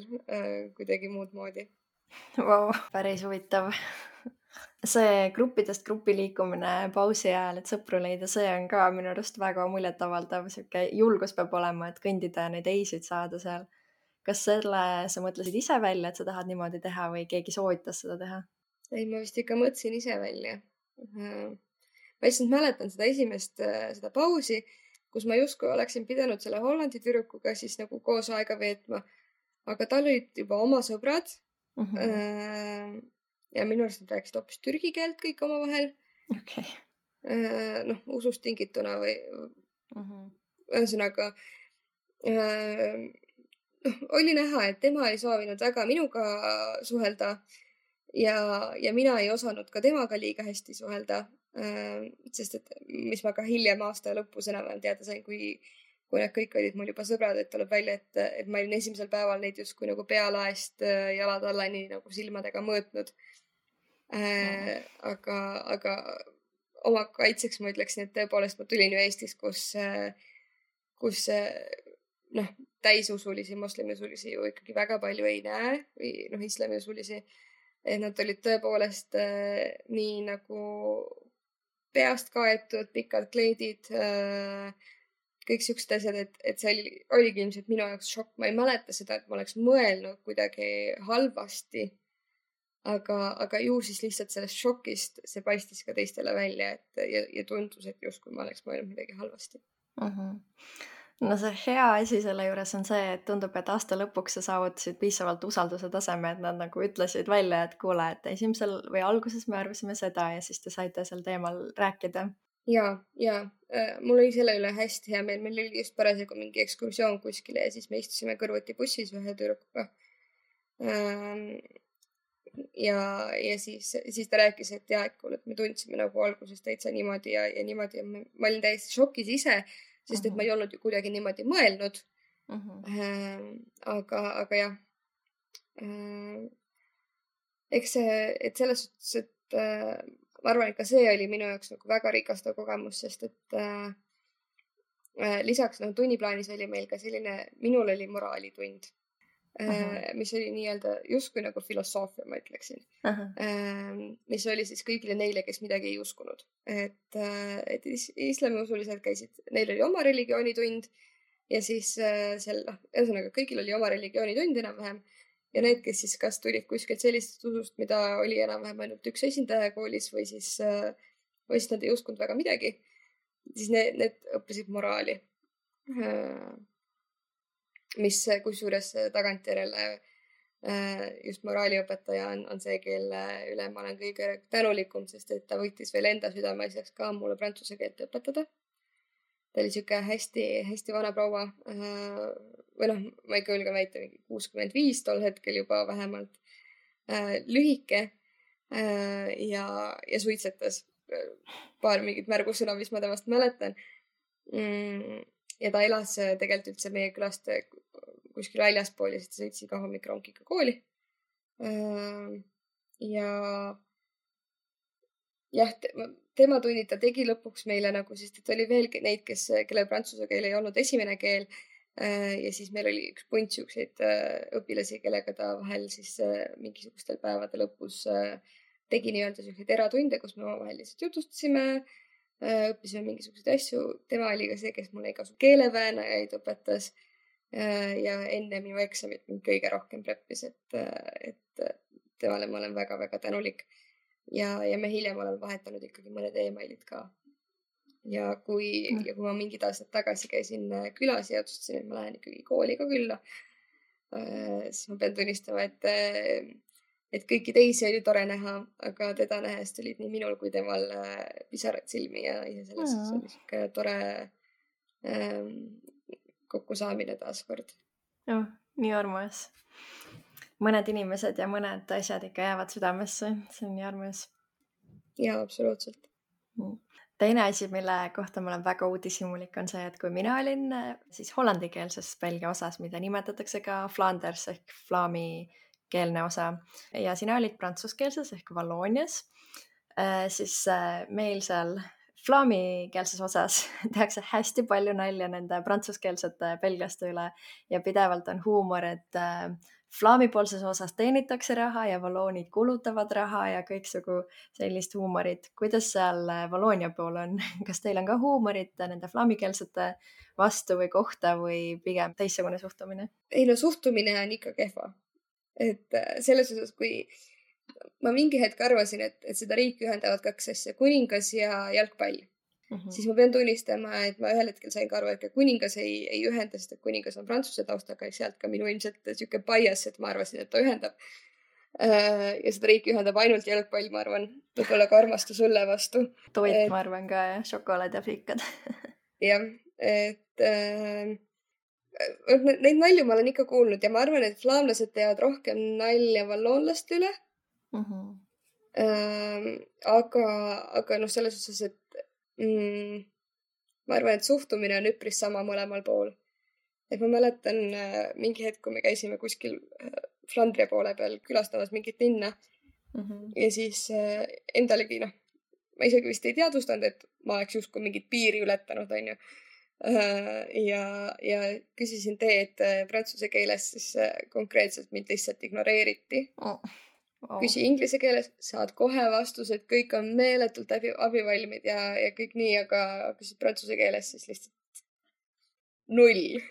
kuidagi muud moodi. Vau, päris huvitav. See gruppidest gruppi liikumine pausi ajal, et sõpru leida, see on ka minu arust väga muljetavaldav. Siuke julgus peab olema, et kõndida ja neid eisid saada seal. Kas selle sa mõtlesid ise välja, et sa tahad niimoodi teha või keegi soovitas seda teha? Ei, ma vist ikka mõtlesin ise välja. Ma lihtsalt mäletan seda esimest seda pausi, kus ma justkui oleksin pidanud selle Hollandi tüdrukuga siis nagu koos aega veetma, aga tal olid juba oma sõbrad. Ja minu arust nad rääkisid hoopis türgi keelt kõik omavahel. Okay. Usust tingituna või ühesõnaga oli näha, et tema ei soovinud väga minuga suhelda ja mina ei osanud ka temaga liiga hästi suhelda, sest et mis ma ka hiljem aasta lõpus enam-vähem teada sain, kui need kõik olid mul juba sõbrad, et tuleb välja, et ma olin esimesel päeval neid justkui nagu pealaest jalad allani nagu silmadega mõõtnud. Aga oma kaitseks ma ütleksin, et tõepoolest ma tulin ju Eestis, kus täisusulisi, moslemiusulisi ju ikkagi väga palju ei näe või islamiusulisi, et nad olid tõepoolest nii nagu peast kaetud, pikad kleidid, kõik siuksed asjad, et see oligi ilmselt minu jaoks šokk. Ma ei mäleta seda, et ma oleks mõelnud kuidagi halvasti, aga ju siis lihtsalt sellest šokist see paistis ka teistele välja, ja tundus, et justkui ma oleks mõelnud midagi halvasti. No see hea asi selle juures on see, et tundub, et aasta lõpuks sa saavutasid piisavalt usalduse taseme, et nad nagu ütlesid välja, et kuule, et esimesel või alguses me arvasime seda ja siis te saite sel teemal rääkida. Ja mul oli selle üle hästi hea meel. Meil oli just parasjagu mingi ekskursioon kuskile ja siis me istusime kõrvuti bussis ühe tüdrukuga. Ja siis ta rääkis, et et kuule, et me tundsime nagu alguses täitsa niimoodi ja niimoodi ja ma olin täiesti šokis ise, sest et ma ei olnud ju kuidagi niimoodi mõelnud. Aga jah, eks see, et selles suhtes, et ma arvan, et ka see oli minu jaoks nagu väga rikastav kogemus, sest et lisaks tunniplaanis oli meil ka selline, minul oli moraalitund, mis oli nii-öelda justkui nagu filosoofia, ma ütleksin, mis oli siis kõigile neile, kes midagi ei uskunud. Et islamiusulised käisid, neil oli oma religioonitund ja siis ühesõnaga kõigil oli oma religioonitund enam-vähem ja need, kes siis kas tulid kuskilt sellisest usust, mida oli enam-vähem ainult üks esindaja koolis või siis nad ei uskunud väga midagi, siis need õppisid moraali. Mis kusjuures tagantjärele just moraaliõpetaja on see, kelle üle ma olen kõige tänulikum, sest et ta võttis veel enda südameasjaks ka mulle prantsuse keelt õpetada. Ta oli siuke hästi vana proua, või noh, ma ikka julgen väita 65 tol hetkel juba vähemalt, lühike ja suitsetas. Paar mingit märgusõna, mis ma temast mäletan. Ja ta elas tegelikult üldse meie külast kuskil väljaspool ja siis ta sõitsi ka hommikronkiga kooli. Ja jah, tema tunnid ta tegi lõpuks meile nagu, sest et oli veel neid, kelle prantsuse keel ei olnud esimene keel. Ja siis meil oli üks punt siukseid õpilasi, kellega ta vahel siis mingisugustel päevade lõpus tegi nii-öelda siukseid eratunde, kus me omavahel lihtsalt jutustasime, õppisime mingisuguseid asju. Tema oli ka see, kes mulle igasugu keeleväänajaid õpetas ja enne minu eksamit mind kõige rohkem preppis, et temale ma olen väga-väga tänulik. Ja me hiljem oleme vahetanud ikkagi mõned emailid ka. Ja kui ma mingid aastad tagasi käisin külas ja otsustasin, et ma lähen ikkagi kooli ka külla, siis ma pean tunnistama, et kõiki teisi oli tore näha, aga teda nähes tulid nii minul kui temal pisarad silmi ja selles oli siuke tore kokkusaamine taaskord. Nii armas. Mõned inimesed ja mõned asjad ikka jäävad südamesse. See on nii armas. Jaa, absoluutselt. Teine asi, mille kohta ma olen väga uudishimulik, on see, et kui mina olin siis hollandikeelses Belgia osas, mida nimetatakse ka Flanders ehk Vlaami keelne osa, ja sina olid prantsuskeelses ehk Valloonias, siis meil seal Vlaami-keelses osas tehakse hästi palju nalja nende prantsuskeelsete belglaste üle ja pidevalt on huumor, et Vlaami-poolses osas teenitakse raha ja valloonid kulutavad raha ja kõiksugu sellist huumorit. Kuidas seal Valloonia pool on? Kas teil on ka huumorit nende Vlaami-keelsete vastu või kohta või pigem teistsugune suhtumine? Ei no suhtumine on ikka kehva. Et selles osas, kui ma mingi hetk arvasin, et seda riiki ühendavad kaks asja, kuningas ja jalgpall. Siis ma pean tunnistama, et ma ühel hetkel sain ka aru, et kuningas ei ühenda, sest et kuningas on prantsuse taustaga ja sealt ka minu ilmselt siuke bias, et ma arvasin, et ta ühendab. Ja seda riiki ühendab ainult jalgpall, ma arvan, võib-olla ka armastus sulle vastu. Toit, ma arvan ka, ja šokolaad ja friikad. Jah, et neid nalju ma olen ikka kuulnud ja ma arvan, et flaamlased teevad rohkem nalja valloonlaste üle. Aga noh, selles osas, et ma arvan, et suhtumine on üpris sama mõlemal pool. Et ma mäletan mingi hetk, kui me käisime kuskil Flandria poole peal külastamas mingit linna ja siis endalegi, ma isegi vist ei teadvustanud, et ma oleks justkui mingit piiri ületanud, on ju. Ja küsisin teed prantsuse keeles, siis konkreetselt mind lihtsalt ignoreeriti. Küsi inglise keeles, saad kohe vastused, kõik on meeletult abivalmid ja kõik nii, aga küsid prantsuse keeles, siis lihtsalt 0.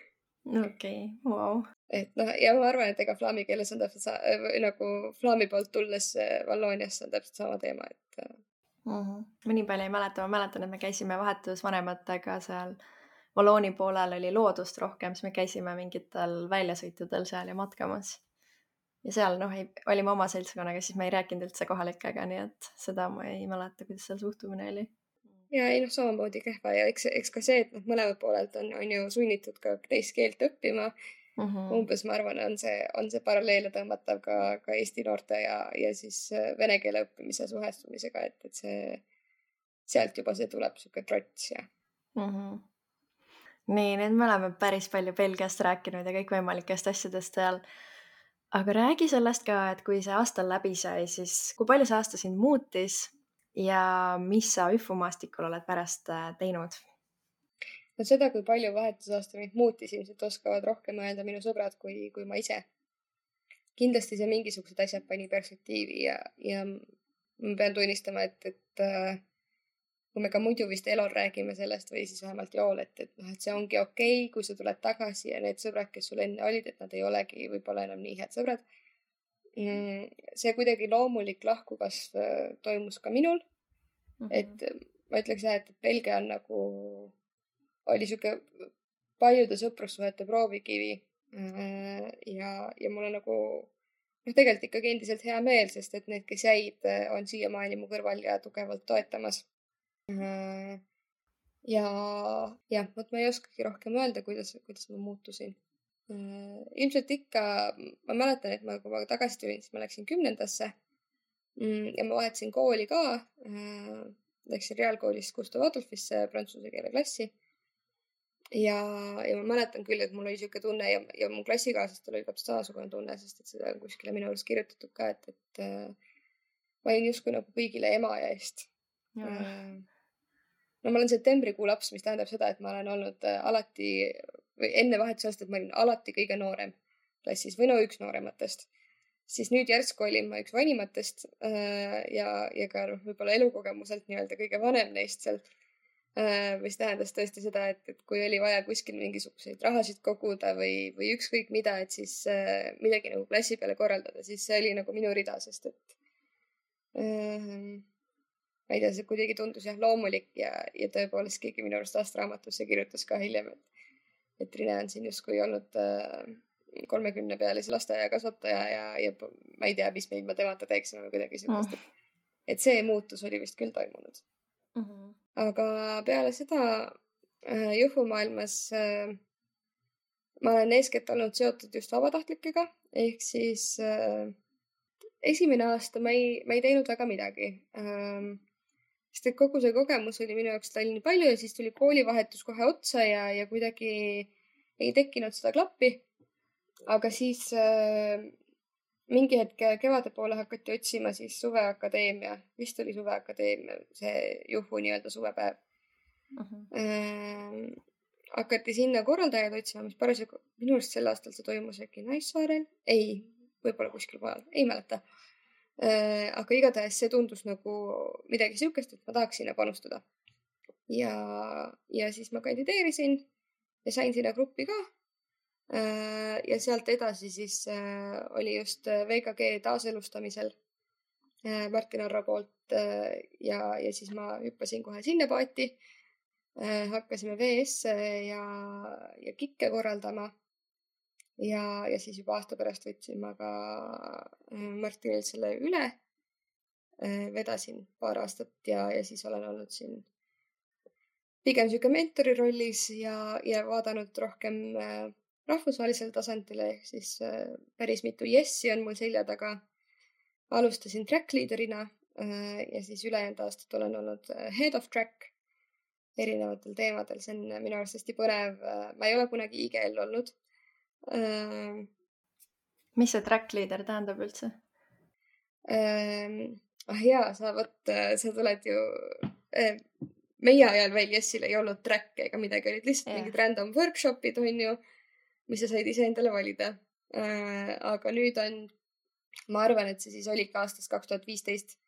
Okei, wow. Et ja ma arvan, et ega flaami keeles on täpselt nagu flaami poolt tulles Vallooniasse on täpselt sama teema, et Ma nii palju ei mäleta, ma mäletan, et me käisime vahetusvanematega seal Vallooni poolel oli loodust rohkem, siis me käisime mingitel väljasõitudel seal ja matkamas. Ja seal olime oma seltskonnaga, siis me ei rääkinud üldse kohalikega, nii et seda ma ei mäleta, kuidas seal suhtumine oli. Ja ei samamoodi kehva ja eks ka see, et mõlemad poolelt on ju sunnitud ka teist keelt õppima. Umbes ma arvan, on see paralleele tõmmatav ka Eesti noorte ja siis vene keele õppimise suhestumisega, et see sealt juba see tuleb siuke trots ja. Nii, nüüd me oleme päris palju Belgiast rääkinud ja kõikvõimalikest asjadest seal. Aga räägi sellest ka, et kui see aasta läbi sai, siis kui palju see aasta sind muutis ja mis sa üfumaastikul oled pärast teinud? No seda, kui palju vahetusaasta mind muutis, ilmselt oskavad rohkem öelda minu sõbrad kui ma ise. Kindlasti see mingisugused asjad pani perspektiivi ja ma pean tunnistama, et kui me ka muidu vist elol räägime sellest või siis vähemalt jool, et see ongi okei, kui sa tuled tagasi ja need sõbrad, kes sul enne olid, et nad ei olegi võib-olla enam nii head sõbrad. See kuidagi loomulik lahkukasv toimus ka minul. Et ma ütleks jah, et Belgia on nagu oli siuke paljude sõprussuhete proovikivi ja mulle nagu tegelikult ikkagi endiselt hea meel, sest et need, kes jäid, on siiamaani mu kõrval ja tugevalt toetamas. Ja jah, vot ma ei oskagi rohkem öelda, kuidas ma muutusin. Ilmselt ikka, ma mäletan, et kui ma tagasi tulin, siis ma läksin 10. Ja ma vahetasin kooli ka. Läksin reaalkoolist Gustav Adolfisse prantsuse keele klassi. Ja ma mäletan küll, et mul oli siuke tunne ja mu klassikaaslastel oli täpselt samasugune tunne, sest et seda on kuskile minu arust kirjutatud ka, et ma olin justkui nagu kõigile ema ja eest. No ma olen septembrikuu laps, mis tähendab seda, et ma olen olnud alati või enne vahetusaastat ma olin alati kõige noorem klassis või no üks noorematest. Siis nüüd järsku olin ma üks vanimatest ja ka võib-olla elukogemuselt nii-öelda kõige vanem neist sealt, mis tähendas tõesti seda, et kui oli vaja kuskil mingisuguseid rahasid koguda või ükskõik mida, et siis midagi nagu klassi peale korraldada, siis see oli nagu minu rida, sest et ma ei tea, see kuidagi tundus jah loomulik ja tõepoolest keegi minu arust aastaraamatusse kirjutas ka hiljem, et Rine on siin justkui olnud 30-pealise lasteaia kasvataja ja ma ei tea, mis me ilma temata teeksime või kuidagi sellist. Et see muutus oli vist küll toimunud. Aga peale seda juhumaailmas ma olen eeskätt olnud seotud just vabatahtlikega, ehk siis esimene aasta ma ei teinud väga midagi. Sest et kogu see kogemus oli minu jaoks nii palju ja siis tuli koolivahetus kohe otsa ja kuidagi ei tekkinud seda klappi. Aga siis mingi hetk kevade poole hakati otsima siis suveakadeemia, vist oli suveakadeemia, see Juhu nii-öelda suvepäev. Hakati sinna korraldajaid otsima, mis parasjagu minu arust sel aastal see toimus äkki Naissaarel, ei, võib-olla kuskil mujal, ei mäleta. Aga igatahes see tundus nagu midagi siukest, et ma tahaks sinna panustada. Ja siis ma kandideerisin ja sain sinna gruppi ka. Ja sealt edasi siis oli just VKG taaselustamisel Martin Arro poolt ja siis ma hüppasin kohe sinna paati. Hakkasime VS-e ja kikke korraldama ja siis juba aasta pärast võtsin ma ka Martinil selle üle. Vedasin paar aastat ja siis olen olnud siin pigem siuke mentori rollis ja vaadanud rohkem rahvusvahelisel tasandile, ehk siis päris mitu Yessi on mul selja taga. Alustasin track leaderina ja siis ülejäänud aastat olen olnud head of track erinevatel teemadel. See on minu arust hästi põnev. Ma ei ole kunagi IGL olnud. Mis see track leader tähendab üldse? Jaa, sa tuled ju... Meie ajal veel Yessil ei olnud track ega midagi, olid lihtsalt mingid random workshopid, on ju, mis sa said ise endale valida. Aga nüüd on, ma arvan, et see siis oli ka aastast 2015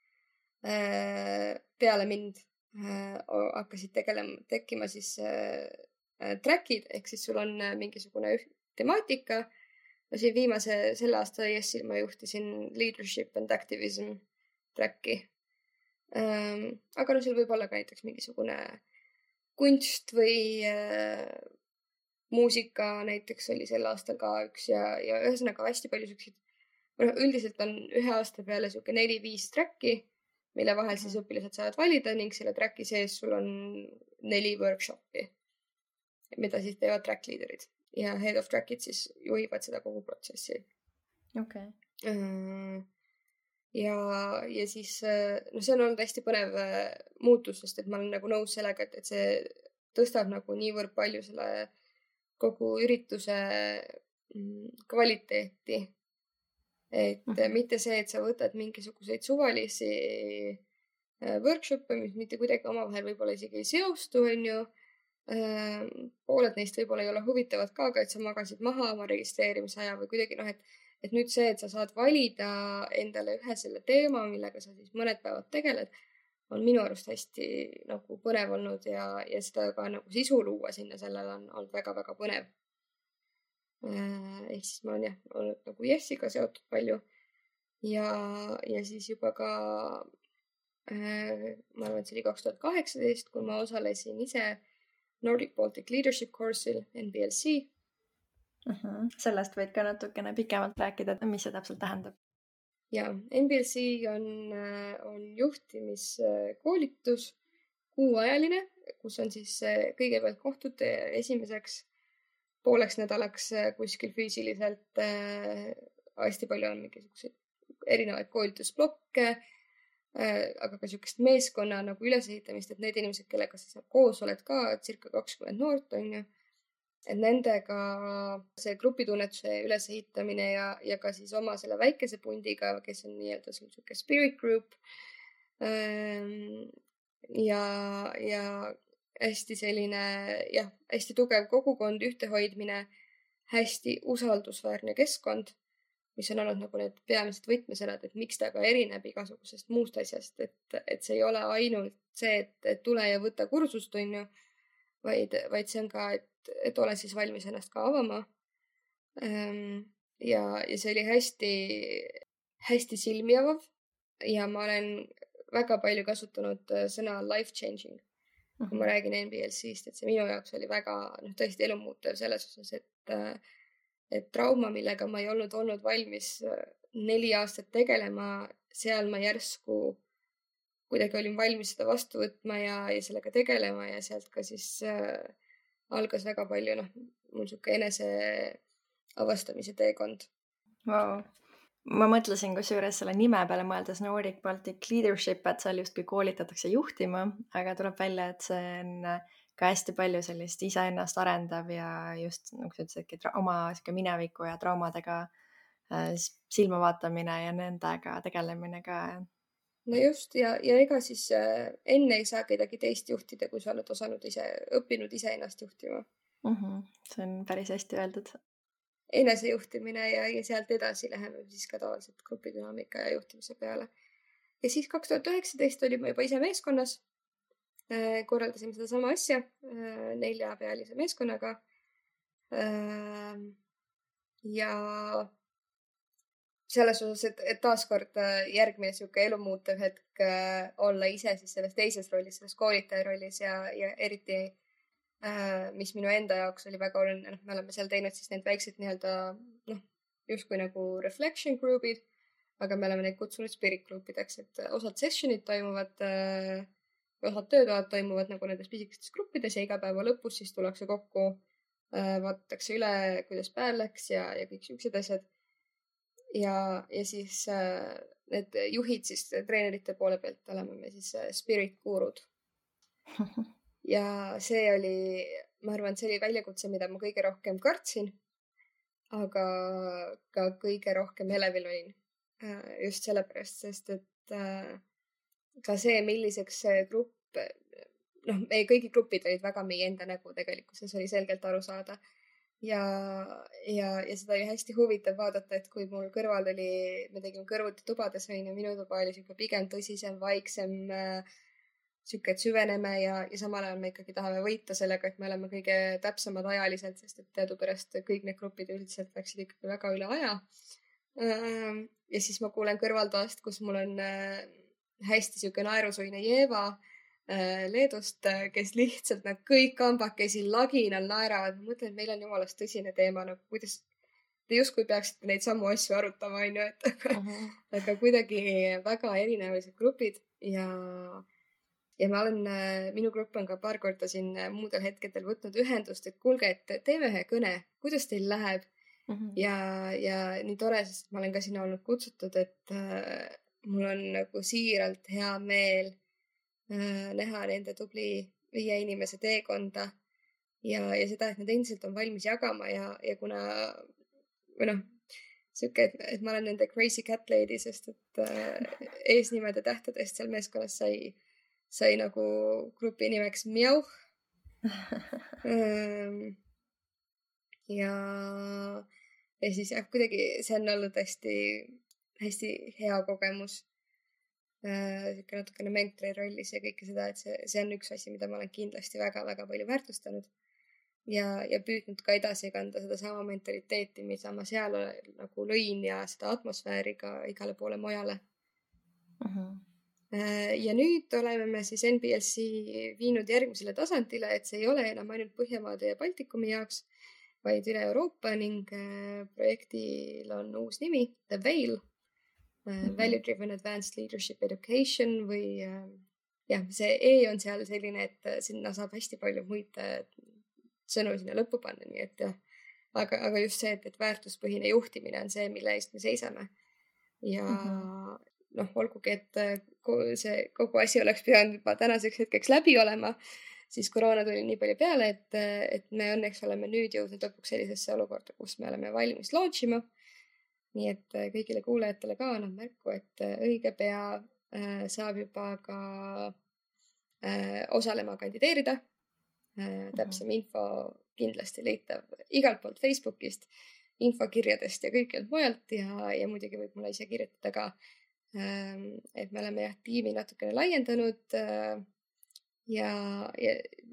peale mind hakkasid tekkima siis trackid, ehk siis sul on mingisugune temaatika. Ja siin selle aasta Yessil ma juhtisin leadership and activism tracki. Aga seal võib olla ka näiteks mingisugune kunst või muusika näiteks oli sel aastal ka üks ja ühesõnaga hästi palju siukseid. Üldiselt on ühe aasta peale siuke 4-5 tracki, mille vahel siis õpilased saavad valida ning selle tracki sees sul on 4 workshopi, mida siis teevad track leaderid ja head of trackid siis juhivad seda kogu protsessi. Okay. Ja siis see on olnud hästi põnev muutus, sest et ma olen nagu nõus sellega, et see tõstab nagu niivõrd palju selle kogu ürituse kvaliteeti. Et mitte see, et sa võtad mingisuguseid suvalisi workshop'e, mis mitte kuidagi omavahel võib-olla isegi ei seostu, on ju. Pooled neist võib-olla ei ole huvitavad ka, aga et sa magasid maha oma registreerimisaja või kuidagi et nüüd see, et sa saad valida endale ühe selle teema, millega sa siis mõned päevad tegeled, on minu arust hästi nagu põnev olnud ja seda ka nagu sisu luua sinna sellele on olnud väga-väga põnev. Ehk siis ma olen olnud nagu Yesiga seotud palju ja siis juba ka ma arvan, et see oli 2018, kui ma osalesin ise Nordic Baltic Leadership Course'il NBLC. Sellest võid ka natukene pikemalt rääkida, mis see täpselt tähendab? ja NBLC on juhtimiskoolitus, kuuajaline, kus on siis kõigepealt kohtud esimeseks pooleks nädalaks kuskil füüsiliselt. Hästi palju on mingisuguseid erinevaid koolitusblokke, aga ka niisugust meeskonna nagu ülesehitamist, et need inimesed, kellega sa seal koos oled ka, circa 20 noort on ju, et nendega see grupitunnetuse ülesehitamine ja ka siis oma selle väikese pundiga, kes on nii-öelda niisugune spirit group. Ja hästi selline, jah, hästi tugev kogukond, ühtehoidmine, hästi usaldusväärne keskkond, mis on olnud nagu need peamised võtmesõnad, et miks ta ka erineb igasugusest muust asjast, et see ei ole ainult see, et tule ja võta kursust, on ju, vaid see on ka, et ole siis valmis ennast ka avama. Ja see oli hästi silmi avav ja ma olen väga palju kasutanud sõna life changing, kui ma räägin NBLC-st, et see minu jaoks oli väga tõesti elumuutev selles osas, et trauma, millega ma ei olnud valmis 4 aastat tegelema, seal ma järsku kuidagi olin valmis seda vastu võtma ja sellega tegelema ja sealt ka siis algas väga palju mul niisugune enese avastamise teekond. Wow. Ma mõtlesin kusjuures selle nime peale mõeldes Nordic Baltic Leadership, et seal justkui koolitatakse juhtima, aga tuleb välja, et see on ka hästi palju sellist iseennast arendav ja just nagu sa ütlesidki oma mineviku ja traumadega silma vaatamine ja nendega tegelemine ka. No just ja ega siis enne ei saa kedagi teist juhtida, kui sa oled õppinud ise ennast juhtima. See on päris hästi öeldud. Enesejuhtimine ja sealt edasi läheme siis ka tavaliselt grupidünaamika ja juhtimise peale. Ja siis 2019 olime juba ise meeskonnas. Korraldasime seda sama asja 4-pealise meeskonnaga. Ja selles osas, et taaskord järgmine niisugune elumuutev hetk olla ise siis selles teises rollis, selles koolitaja rollis ja eriti mis minu enda jaoks oli väga oluline, me oleme seal teinud siis need väiksed nii-öelda justkui nagu reflection group'id, aga me oleme neid kutsunud spirit group'ideks, et osad sessionid toimuvad, osad töötoad toimuvad nagu nendes pisikestes gruppides ja iga päeva lõpus siis tullakse kokku, vaadatakse üle, kuidas päev läks ja kõik niisugused asjad. Ja siis need juhid siis treenerite poole pealt oleme me siis spirit gurud. Ja see oli, ma arvan, see oli väljakutse, mida ma kõige rohkem kartsin, aga ka kõige rohkem elevil olin. Just sellepärast, sest et ka see, milliseks see grupp, meie kõigi grupid olid väga meie enda nägu tegelikkuses, oli selgelt aru saada. Ja seda oli hästi huvitav vaadata, et kui mul kõrval oli, me tegime kõrvuti tubades, minu tuba oli siuke pigem tõsisem, vaiksem, siuke, et süveneme ja samal ajal me ikkagi tahame võita sellega, et me oleme kõige täpsemad ajaliselt, sest et teadupärast kõik need grupid üldiselt läksid ikkagi väga üle aja. Ja siis ma kuulen kõrvaltoast, kus mul on hästi siuke naerusuine Jeeva Leedust, kes lihtsalt kõik kambakesi laginal naeravad. Ma mõtlen, et meil on jumalast tõsine teema, kuidas te justkui peaksite neid samu asju arutama, on ju, aga kuidagi väga erinevad grupid ja minu grupp on ka paar korda siin muudel hetkedel võtnud ühendust, et kuulge, et teeme ühe kõne, kuidas teil läheb. Ja nii tore, sest ma olen ka sinna olnud kutsutud, et mul on nagu siiralt hea meel näha nende tubli 5 inimese teekonda ja seda, et nad endiselt on valmis jagama ja kuna siuke, et ma olen nende crazy cat lady, sest et eesnimede tähtedest seal meeskonnas sai nagu grupi nimeks Mjauh. Ja siis kuidagi see on olnud hästi hea kogemus. Natukene mentori rollis ja kõike seda, et see on üks asi, mida ma olen kindlasti väga-väga palju väärtustanud ja püüdnud ka edasi kanda seda sama mentaliteeti, mida ma seal nagu lõin ja seda atmosfääri ka igale poole mujale. Ja nüüd oleme me siis NBLC viinud järgmisele tasandile, et see ei ole enam ainult Põhjamaade ja Baltikumi jaoks, vaid üle Euroopa ning projektil on uus nimi, The Veil. Value Driven Advanced Leadership Education või jah, see E on seal selline, et sinna saab hästi palju muid sõnu sinna lõppu panna, nii et jah. Aga just see, et väärtuspõhine juhtimine on see, mille eest me seisame. Ja olgugi, et see kogu asi oleks pidanud juba tänaseks hetkeks läbi olema, siis koroona tuli nii palju peale, et me õnneks oleme nüüd jõudnud lõpuks sellisesse olukorda, kus me oleme valmis launch ima. Nii et kõigile kuulajatele ka annan märku, et õige pea saab juba ka osalema kandideerida. Täpsem info kindlasti leitav igalt poolt Facebookist, infokirjadest ja kõikjalt mujalt ja muidugi võib mulle ise kirjutada ka, et me oleme tiimi natukene laiendanud ja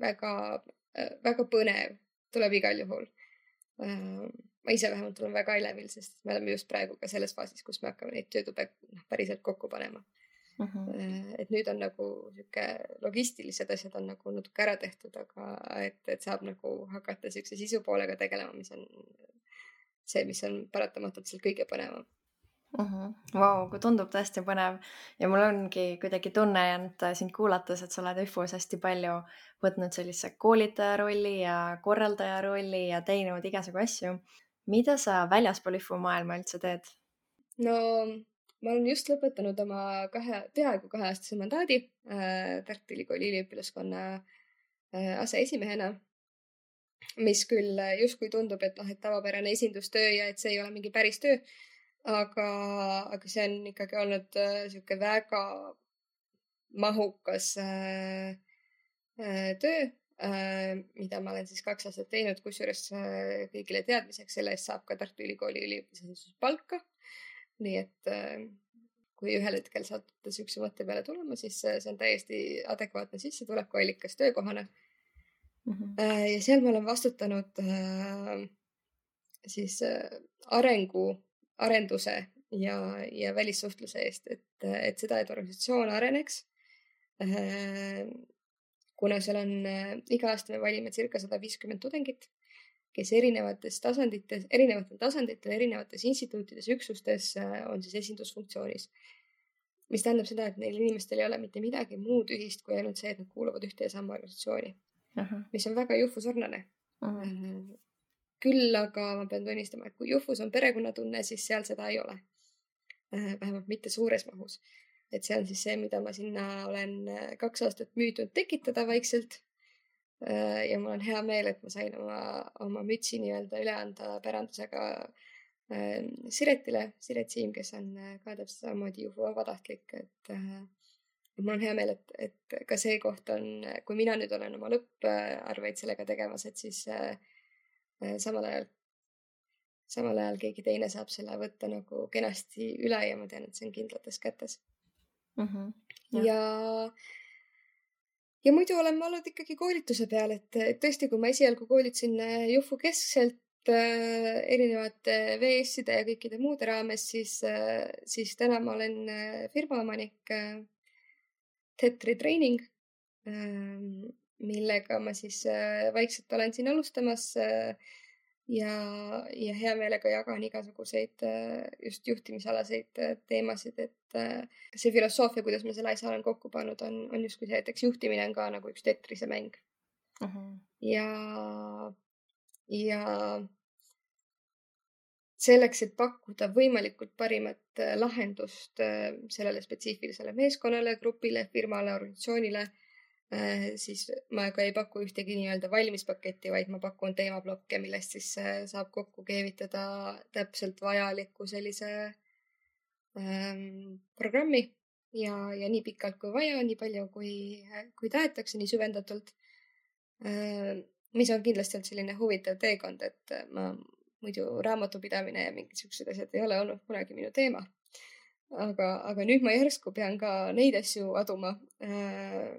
väga, väga põnev tuleb igal juhul. Ma ise vähemalt olen väga elevil, sest me oleme just praegu ka selles faasis, kus me hakkame neid töötube päriselt kokku panema. Et nüüd on nagu siuke logistilised asjad on nagu natuke ära tehtud, aga et saab nagu hakata siukse sisu poolega tegelema, mis on see, mis on paratamatult seal kõige põnevam. Vau, kui tundub tõesti põnev ja mul ongi kuidagi tunne jäänud sind kuulates, et sa oled ÜFU-s hästi palju võtnud sellise koolitaja rolli ja korraldaja rolli ja teinud igasugu asju. Mida sa väljaspool ÜFU maailma üldse teed? No ma olen just lõpetanud oma peaaegu 2-aastase mandaadi Tartu Ülikooli üliõpilaskonna aseesimehena, mis küll justkui tundub, et tavapärane esindustöö ja et see ei ole mingi päris töö, aga see on ikkagi olnud siuke väga mahukas töö, mida ma olen siis 2 aastat teinud, kusjuures kõigile teadmiseks selle eest saab ka Tartu Ülikooli üliõpilasesinduse palka. Nii et kui ühel hetkel saate siukse mõtte peale tulema, siis see on täiesti adekvaatne sissetulekuallikas töökohana. Ja seal ma olen vastutanud siis arenduse ja välissuhtluse eest, et seda, et organisatsioon areneks. Kuna seal on iga aasta me valime circa 150 tudengit, kes erinevatel tasanditel, erinevates instituutides, üksustes on siis esindusfunktsioonis. Mis tähendab seda, et neil inimestel ei ole mitte midagi muud ühist kui ainult see, et nad kuuluvad ühte ja sama organisatsiooni, mis on väga Jufu sarnane. Küll aga ma pean tunnistama, et kui Jufus on perekonnatunne, siis seal seda ei ole. Vähemalt mitte suures mahus. Et see on siis see, mida ma sinna olen 2 aastat müüdnud tekitada vaikselt. Ja mul on hea meel, et ma sain oma mütsi nii-öelda üle anda pärandusega Siretile, Siret Siim, kes on ka täpselt samamoodi Jufu vabatahtlik. Et mul on hea meel, et ka see koht on, kui mina nüüd olen oma lõpparveid sellega tegemas, et siis samal ajal keegi teine saab selle võtta nagu kenasti üle ja ma tean, et see on kindlates kätes. Ja muidu olen ma olnud ikkagi koolituse peal, et tõesti, kui ma esialgu koolitasin Jufu keskselt erinevate VS-ide ja kõikide muude raames, siis täna ma olen firmaomanik Tetri Training, millega ma siis vaikselt olen siin alustamas ja hea meelega jagan igasuguseid just juhtimisalaseid teemasid, et see filosoofia, kuidas ma selle asja olen kokku pannud, on justkui see, et eks juhtimine on ka nagu üks Tetrise mäng. Ja selleks, et pakkuda võimalikult parimat lahendust sellele spetsiifilisele meeskonnale, grupile, firmale, organisatsioonile, siis ma ka ei paku ühtegi nii-öelda valmispaketti, vaid ma pakun teemablokke, millest siis saab kokku keevitada täpselt vajaliku sellise programmi ja nii pikalt kui vaja, nii palju kui tahetakse, nii süvendatult, mis on kindlasti olnud selline huvitav teekond, et ma muidu raamatupidamine ja mingid siuksed asjad ei ole olnud kunagi minu teema. Aga nüüd ma järsku pean ka neid asju aduma,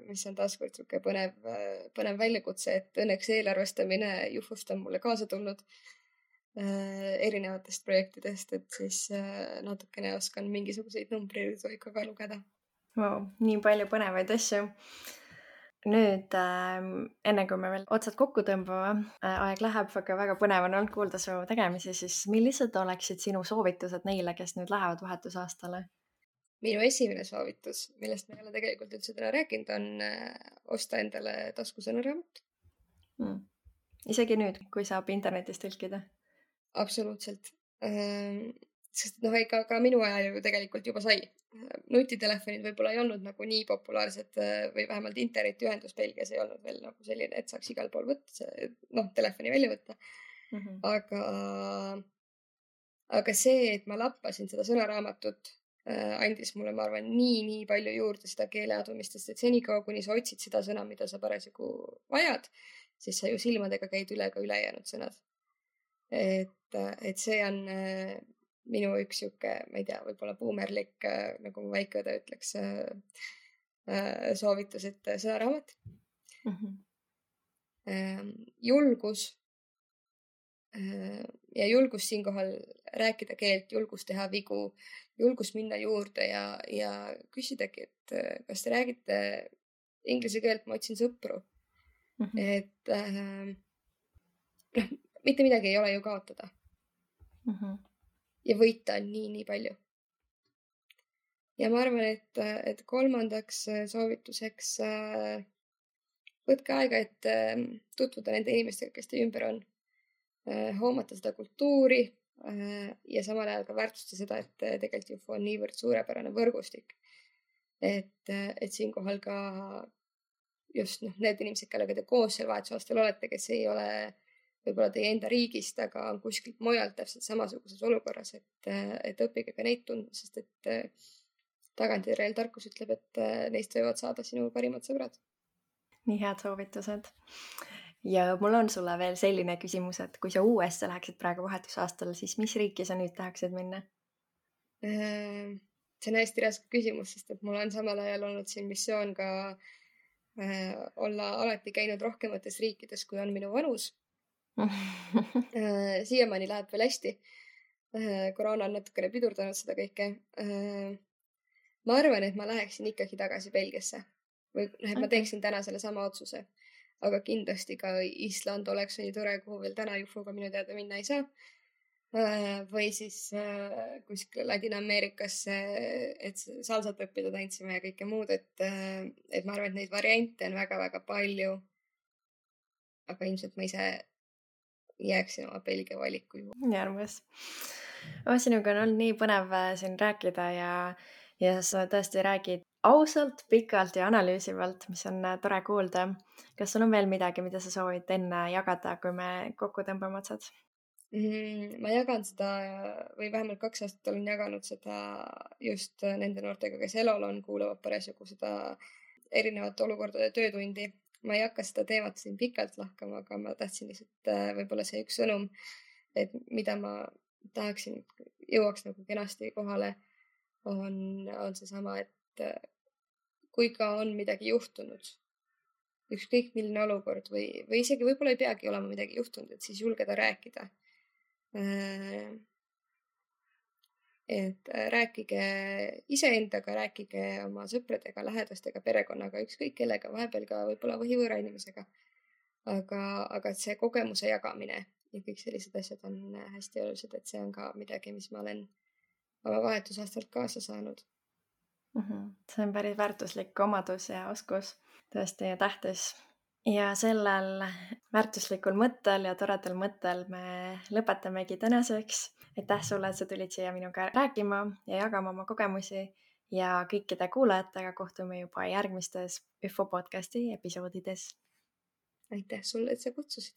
mis on taaskord siuke põnev väljakutse, et õnneks eelarvestamine Jufust on mulle kaasa tulnud erinevatest projektidest, et siis natukene oskan mingisuguseid numbreid ikka ka lugeda. Wow, nii palju põnevaid asju. Nüüd, enne kui me veel otsad kokku tõmbame, aeg läheb, aga väga põnev on olnud kuulda su tegemisi, siis millised oleksid sinu soovitused neile, kes nüüd lähevad vahetusaastale? minu esimene soovitus, millest me ei ole tegelikult üldse täna rääkinud, on osta endale taskusõnaraamat. Isegi nüüd, kui saab internetis tõlkida? Absoluutselt. Sest ega ka minu ajal ju tegelikult juba sai. Nutitelefonid võib-olla ei olnud nagu nii populaarsed või vähemalt internetiühendus Belgias ei olnud veel nagu selline, et saaks igal pool võtta, telefoni välja võtta. Aga see, et ma lappasin seda sõnaraamatut, andis mulle, ma arvan, nii palju juurde seda keeleadumistest, et senikaua, kuni sa otsid seda sõna, mida sa parasjagu vajad, siis sa ju silmadega käid üle ka ülejäänud sõnad. Et see on minu üks sihuke, ma ei tea, võib-olla buumerlik, nagu mu väikeõde ütleks, soovitus, et sõnaraamat. Julgus ja julgus siinkohal rääkida keelt, julgus teha vigu, julgus minna juurde ja küsidagi, et kas te räägite inglise keelt, ma otsin sõpru. Et mitte midagi ei ole ju kaotada. Ja võita on nii palju. Ja ma arvan, et kolmandaks soovituseks võtke aega, et tutvuda nende inimestega, kes teie ümber on. Hoomata seda kultuuri ja samal ajal ka väärtustada seda, et tegelikult UFO on niivõrd suurepärane võrgustik. Et siinkohal ka just need inimesed, kellega te koos seal vahetusaastal olete, kes ei ole võib-olla teie enda riigist, aga on kuskilt mujalt täpselt samasuguses olukorras, et õppige ka neid tundma, sest et tagantjärele tarkus ütleb, et neist võivad saada sinu parimad sõbrad. Nii head soovitused. Ja mul on sulle veel selline küsimus, et kui sa USA läheksid praegu vahetusaastal, siis mis riiki sa nüüd tahaksid minna? See on hästi raske küsimus, sest et mul on samal ajal olnud siin missioon ka olla alati käinud rohkemates riikides, kui on minu vanus. Siiamaani läheb veel hästi. Koroona on natukene pidurdanud seda kõike. Ma arvan, et ma läheksin ikkagi tagasi Belgiasse. Või ma teeksin täna selle sama otsuse. Aga kindlasti ka Island oleks nii tore, kuhu veel täna UFO-ga minu teada minna ei saa. Või siis kuskile Ladina-Ameerikasse, et salsat õppida tantsima ja kõike muud. Et ma arvan, et neid variante on väga palju. Aga ilmselt ma ise jääksin oma Belgia valiku juurde. Nii armas. Sinuga on olnud nii põnev siin rääkida ja sa tõesti räägid ausalt, pikalt ja analüüsivalt, mis on tore kuulda. Kas sul on veel midagi, mida sa soovid enne jagada, kui me kokku tõmbame otsad? Ma jagan seda või vähemalt 2 aastat olen jaganud seda just nende noortega, kes elol on, kuulavad parasjagu seda erinevate olukordade töötundi. Ma ei hakka seda teemat siin pikalt lahkama, aga ma tahtsin lihtsalt võib-olla see üks sõnum, et mida ma tahaksin, jõuaks nagu kenasti kohale, on seesama, et kui ka on midagi juhtunud, ükskõik milline olukord või isegi võib-olla ei peagi olema midagi juhtunud, et siis julgeda rääkida. Et rääkige iseendaga, rääkige oma sõpradega, lähedastega, perekonnaga, ükskõik kellega, vahepeal ka võib-olla võhivõõra inimesega. Aga see kogemuse jagamine ja kõik sellised asjad on hästi olulised, et see on ka midagi, mis ma olen oma vahetusaastalt kaasa saanud. See on päris väärtuslik omadus ja oskus, tõesti tähtis. Ja sellel väärtuslikul mõttel ja toredal mõttel me lõpetamegi tänaseks. Aitäh sulle, et sa tulid siia minuga rääkima ja jagama oma kogemusi ja kõikide kuulajatega kohtume juba järgmistes UFO podcasti episoodides. Aitäh sulle, et sa kutsusid.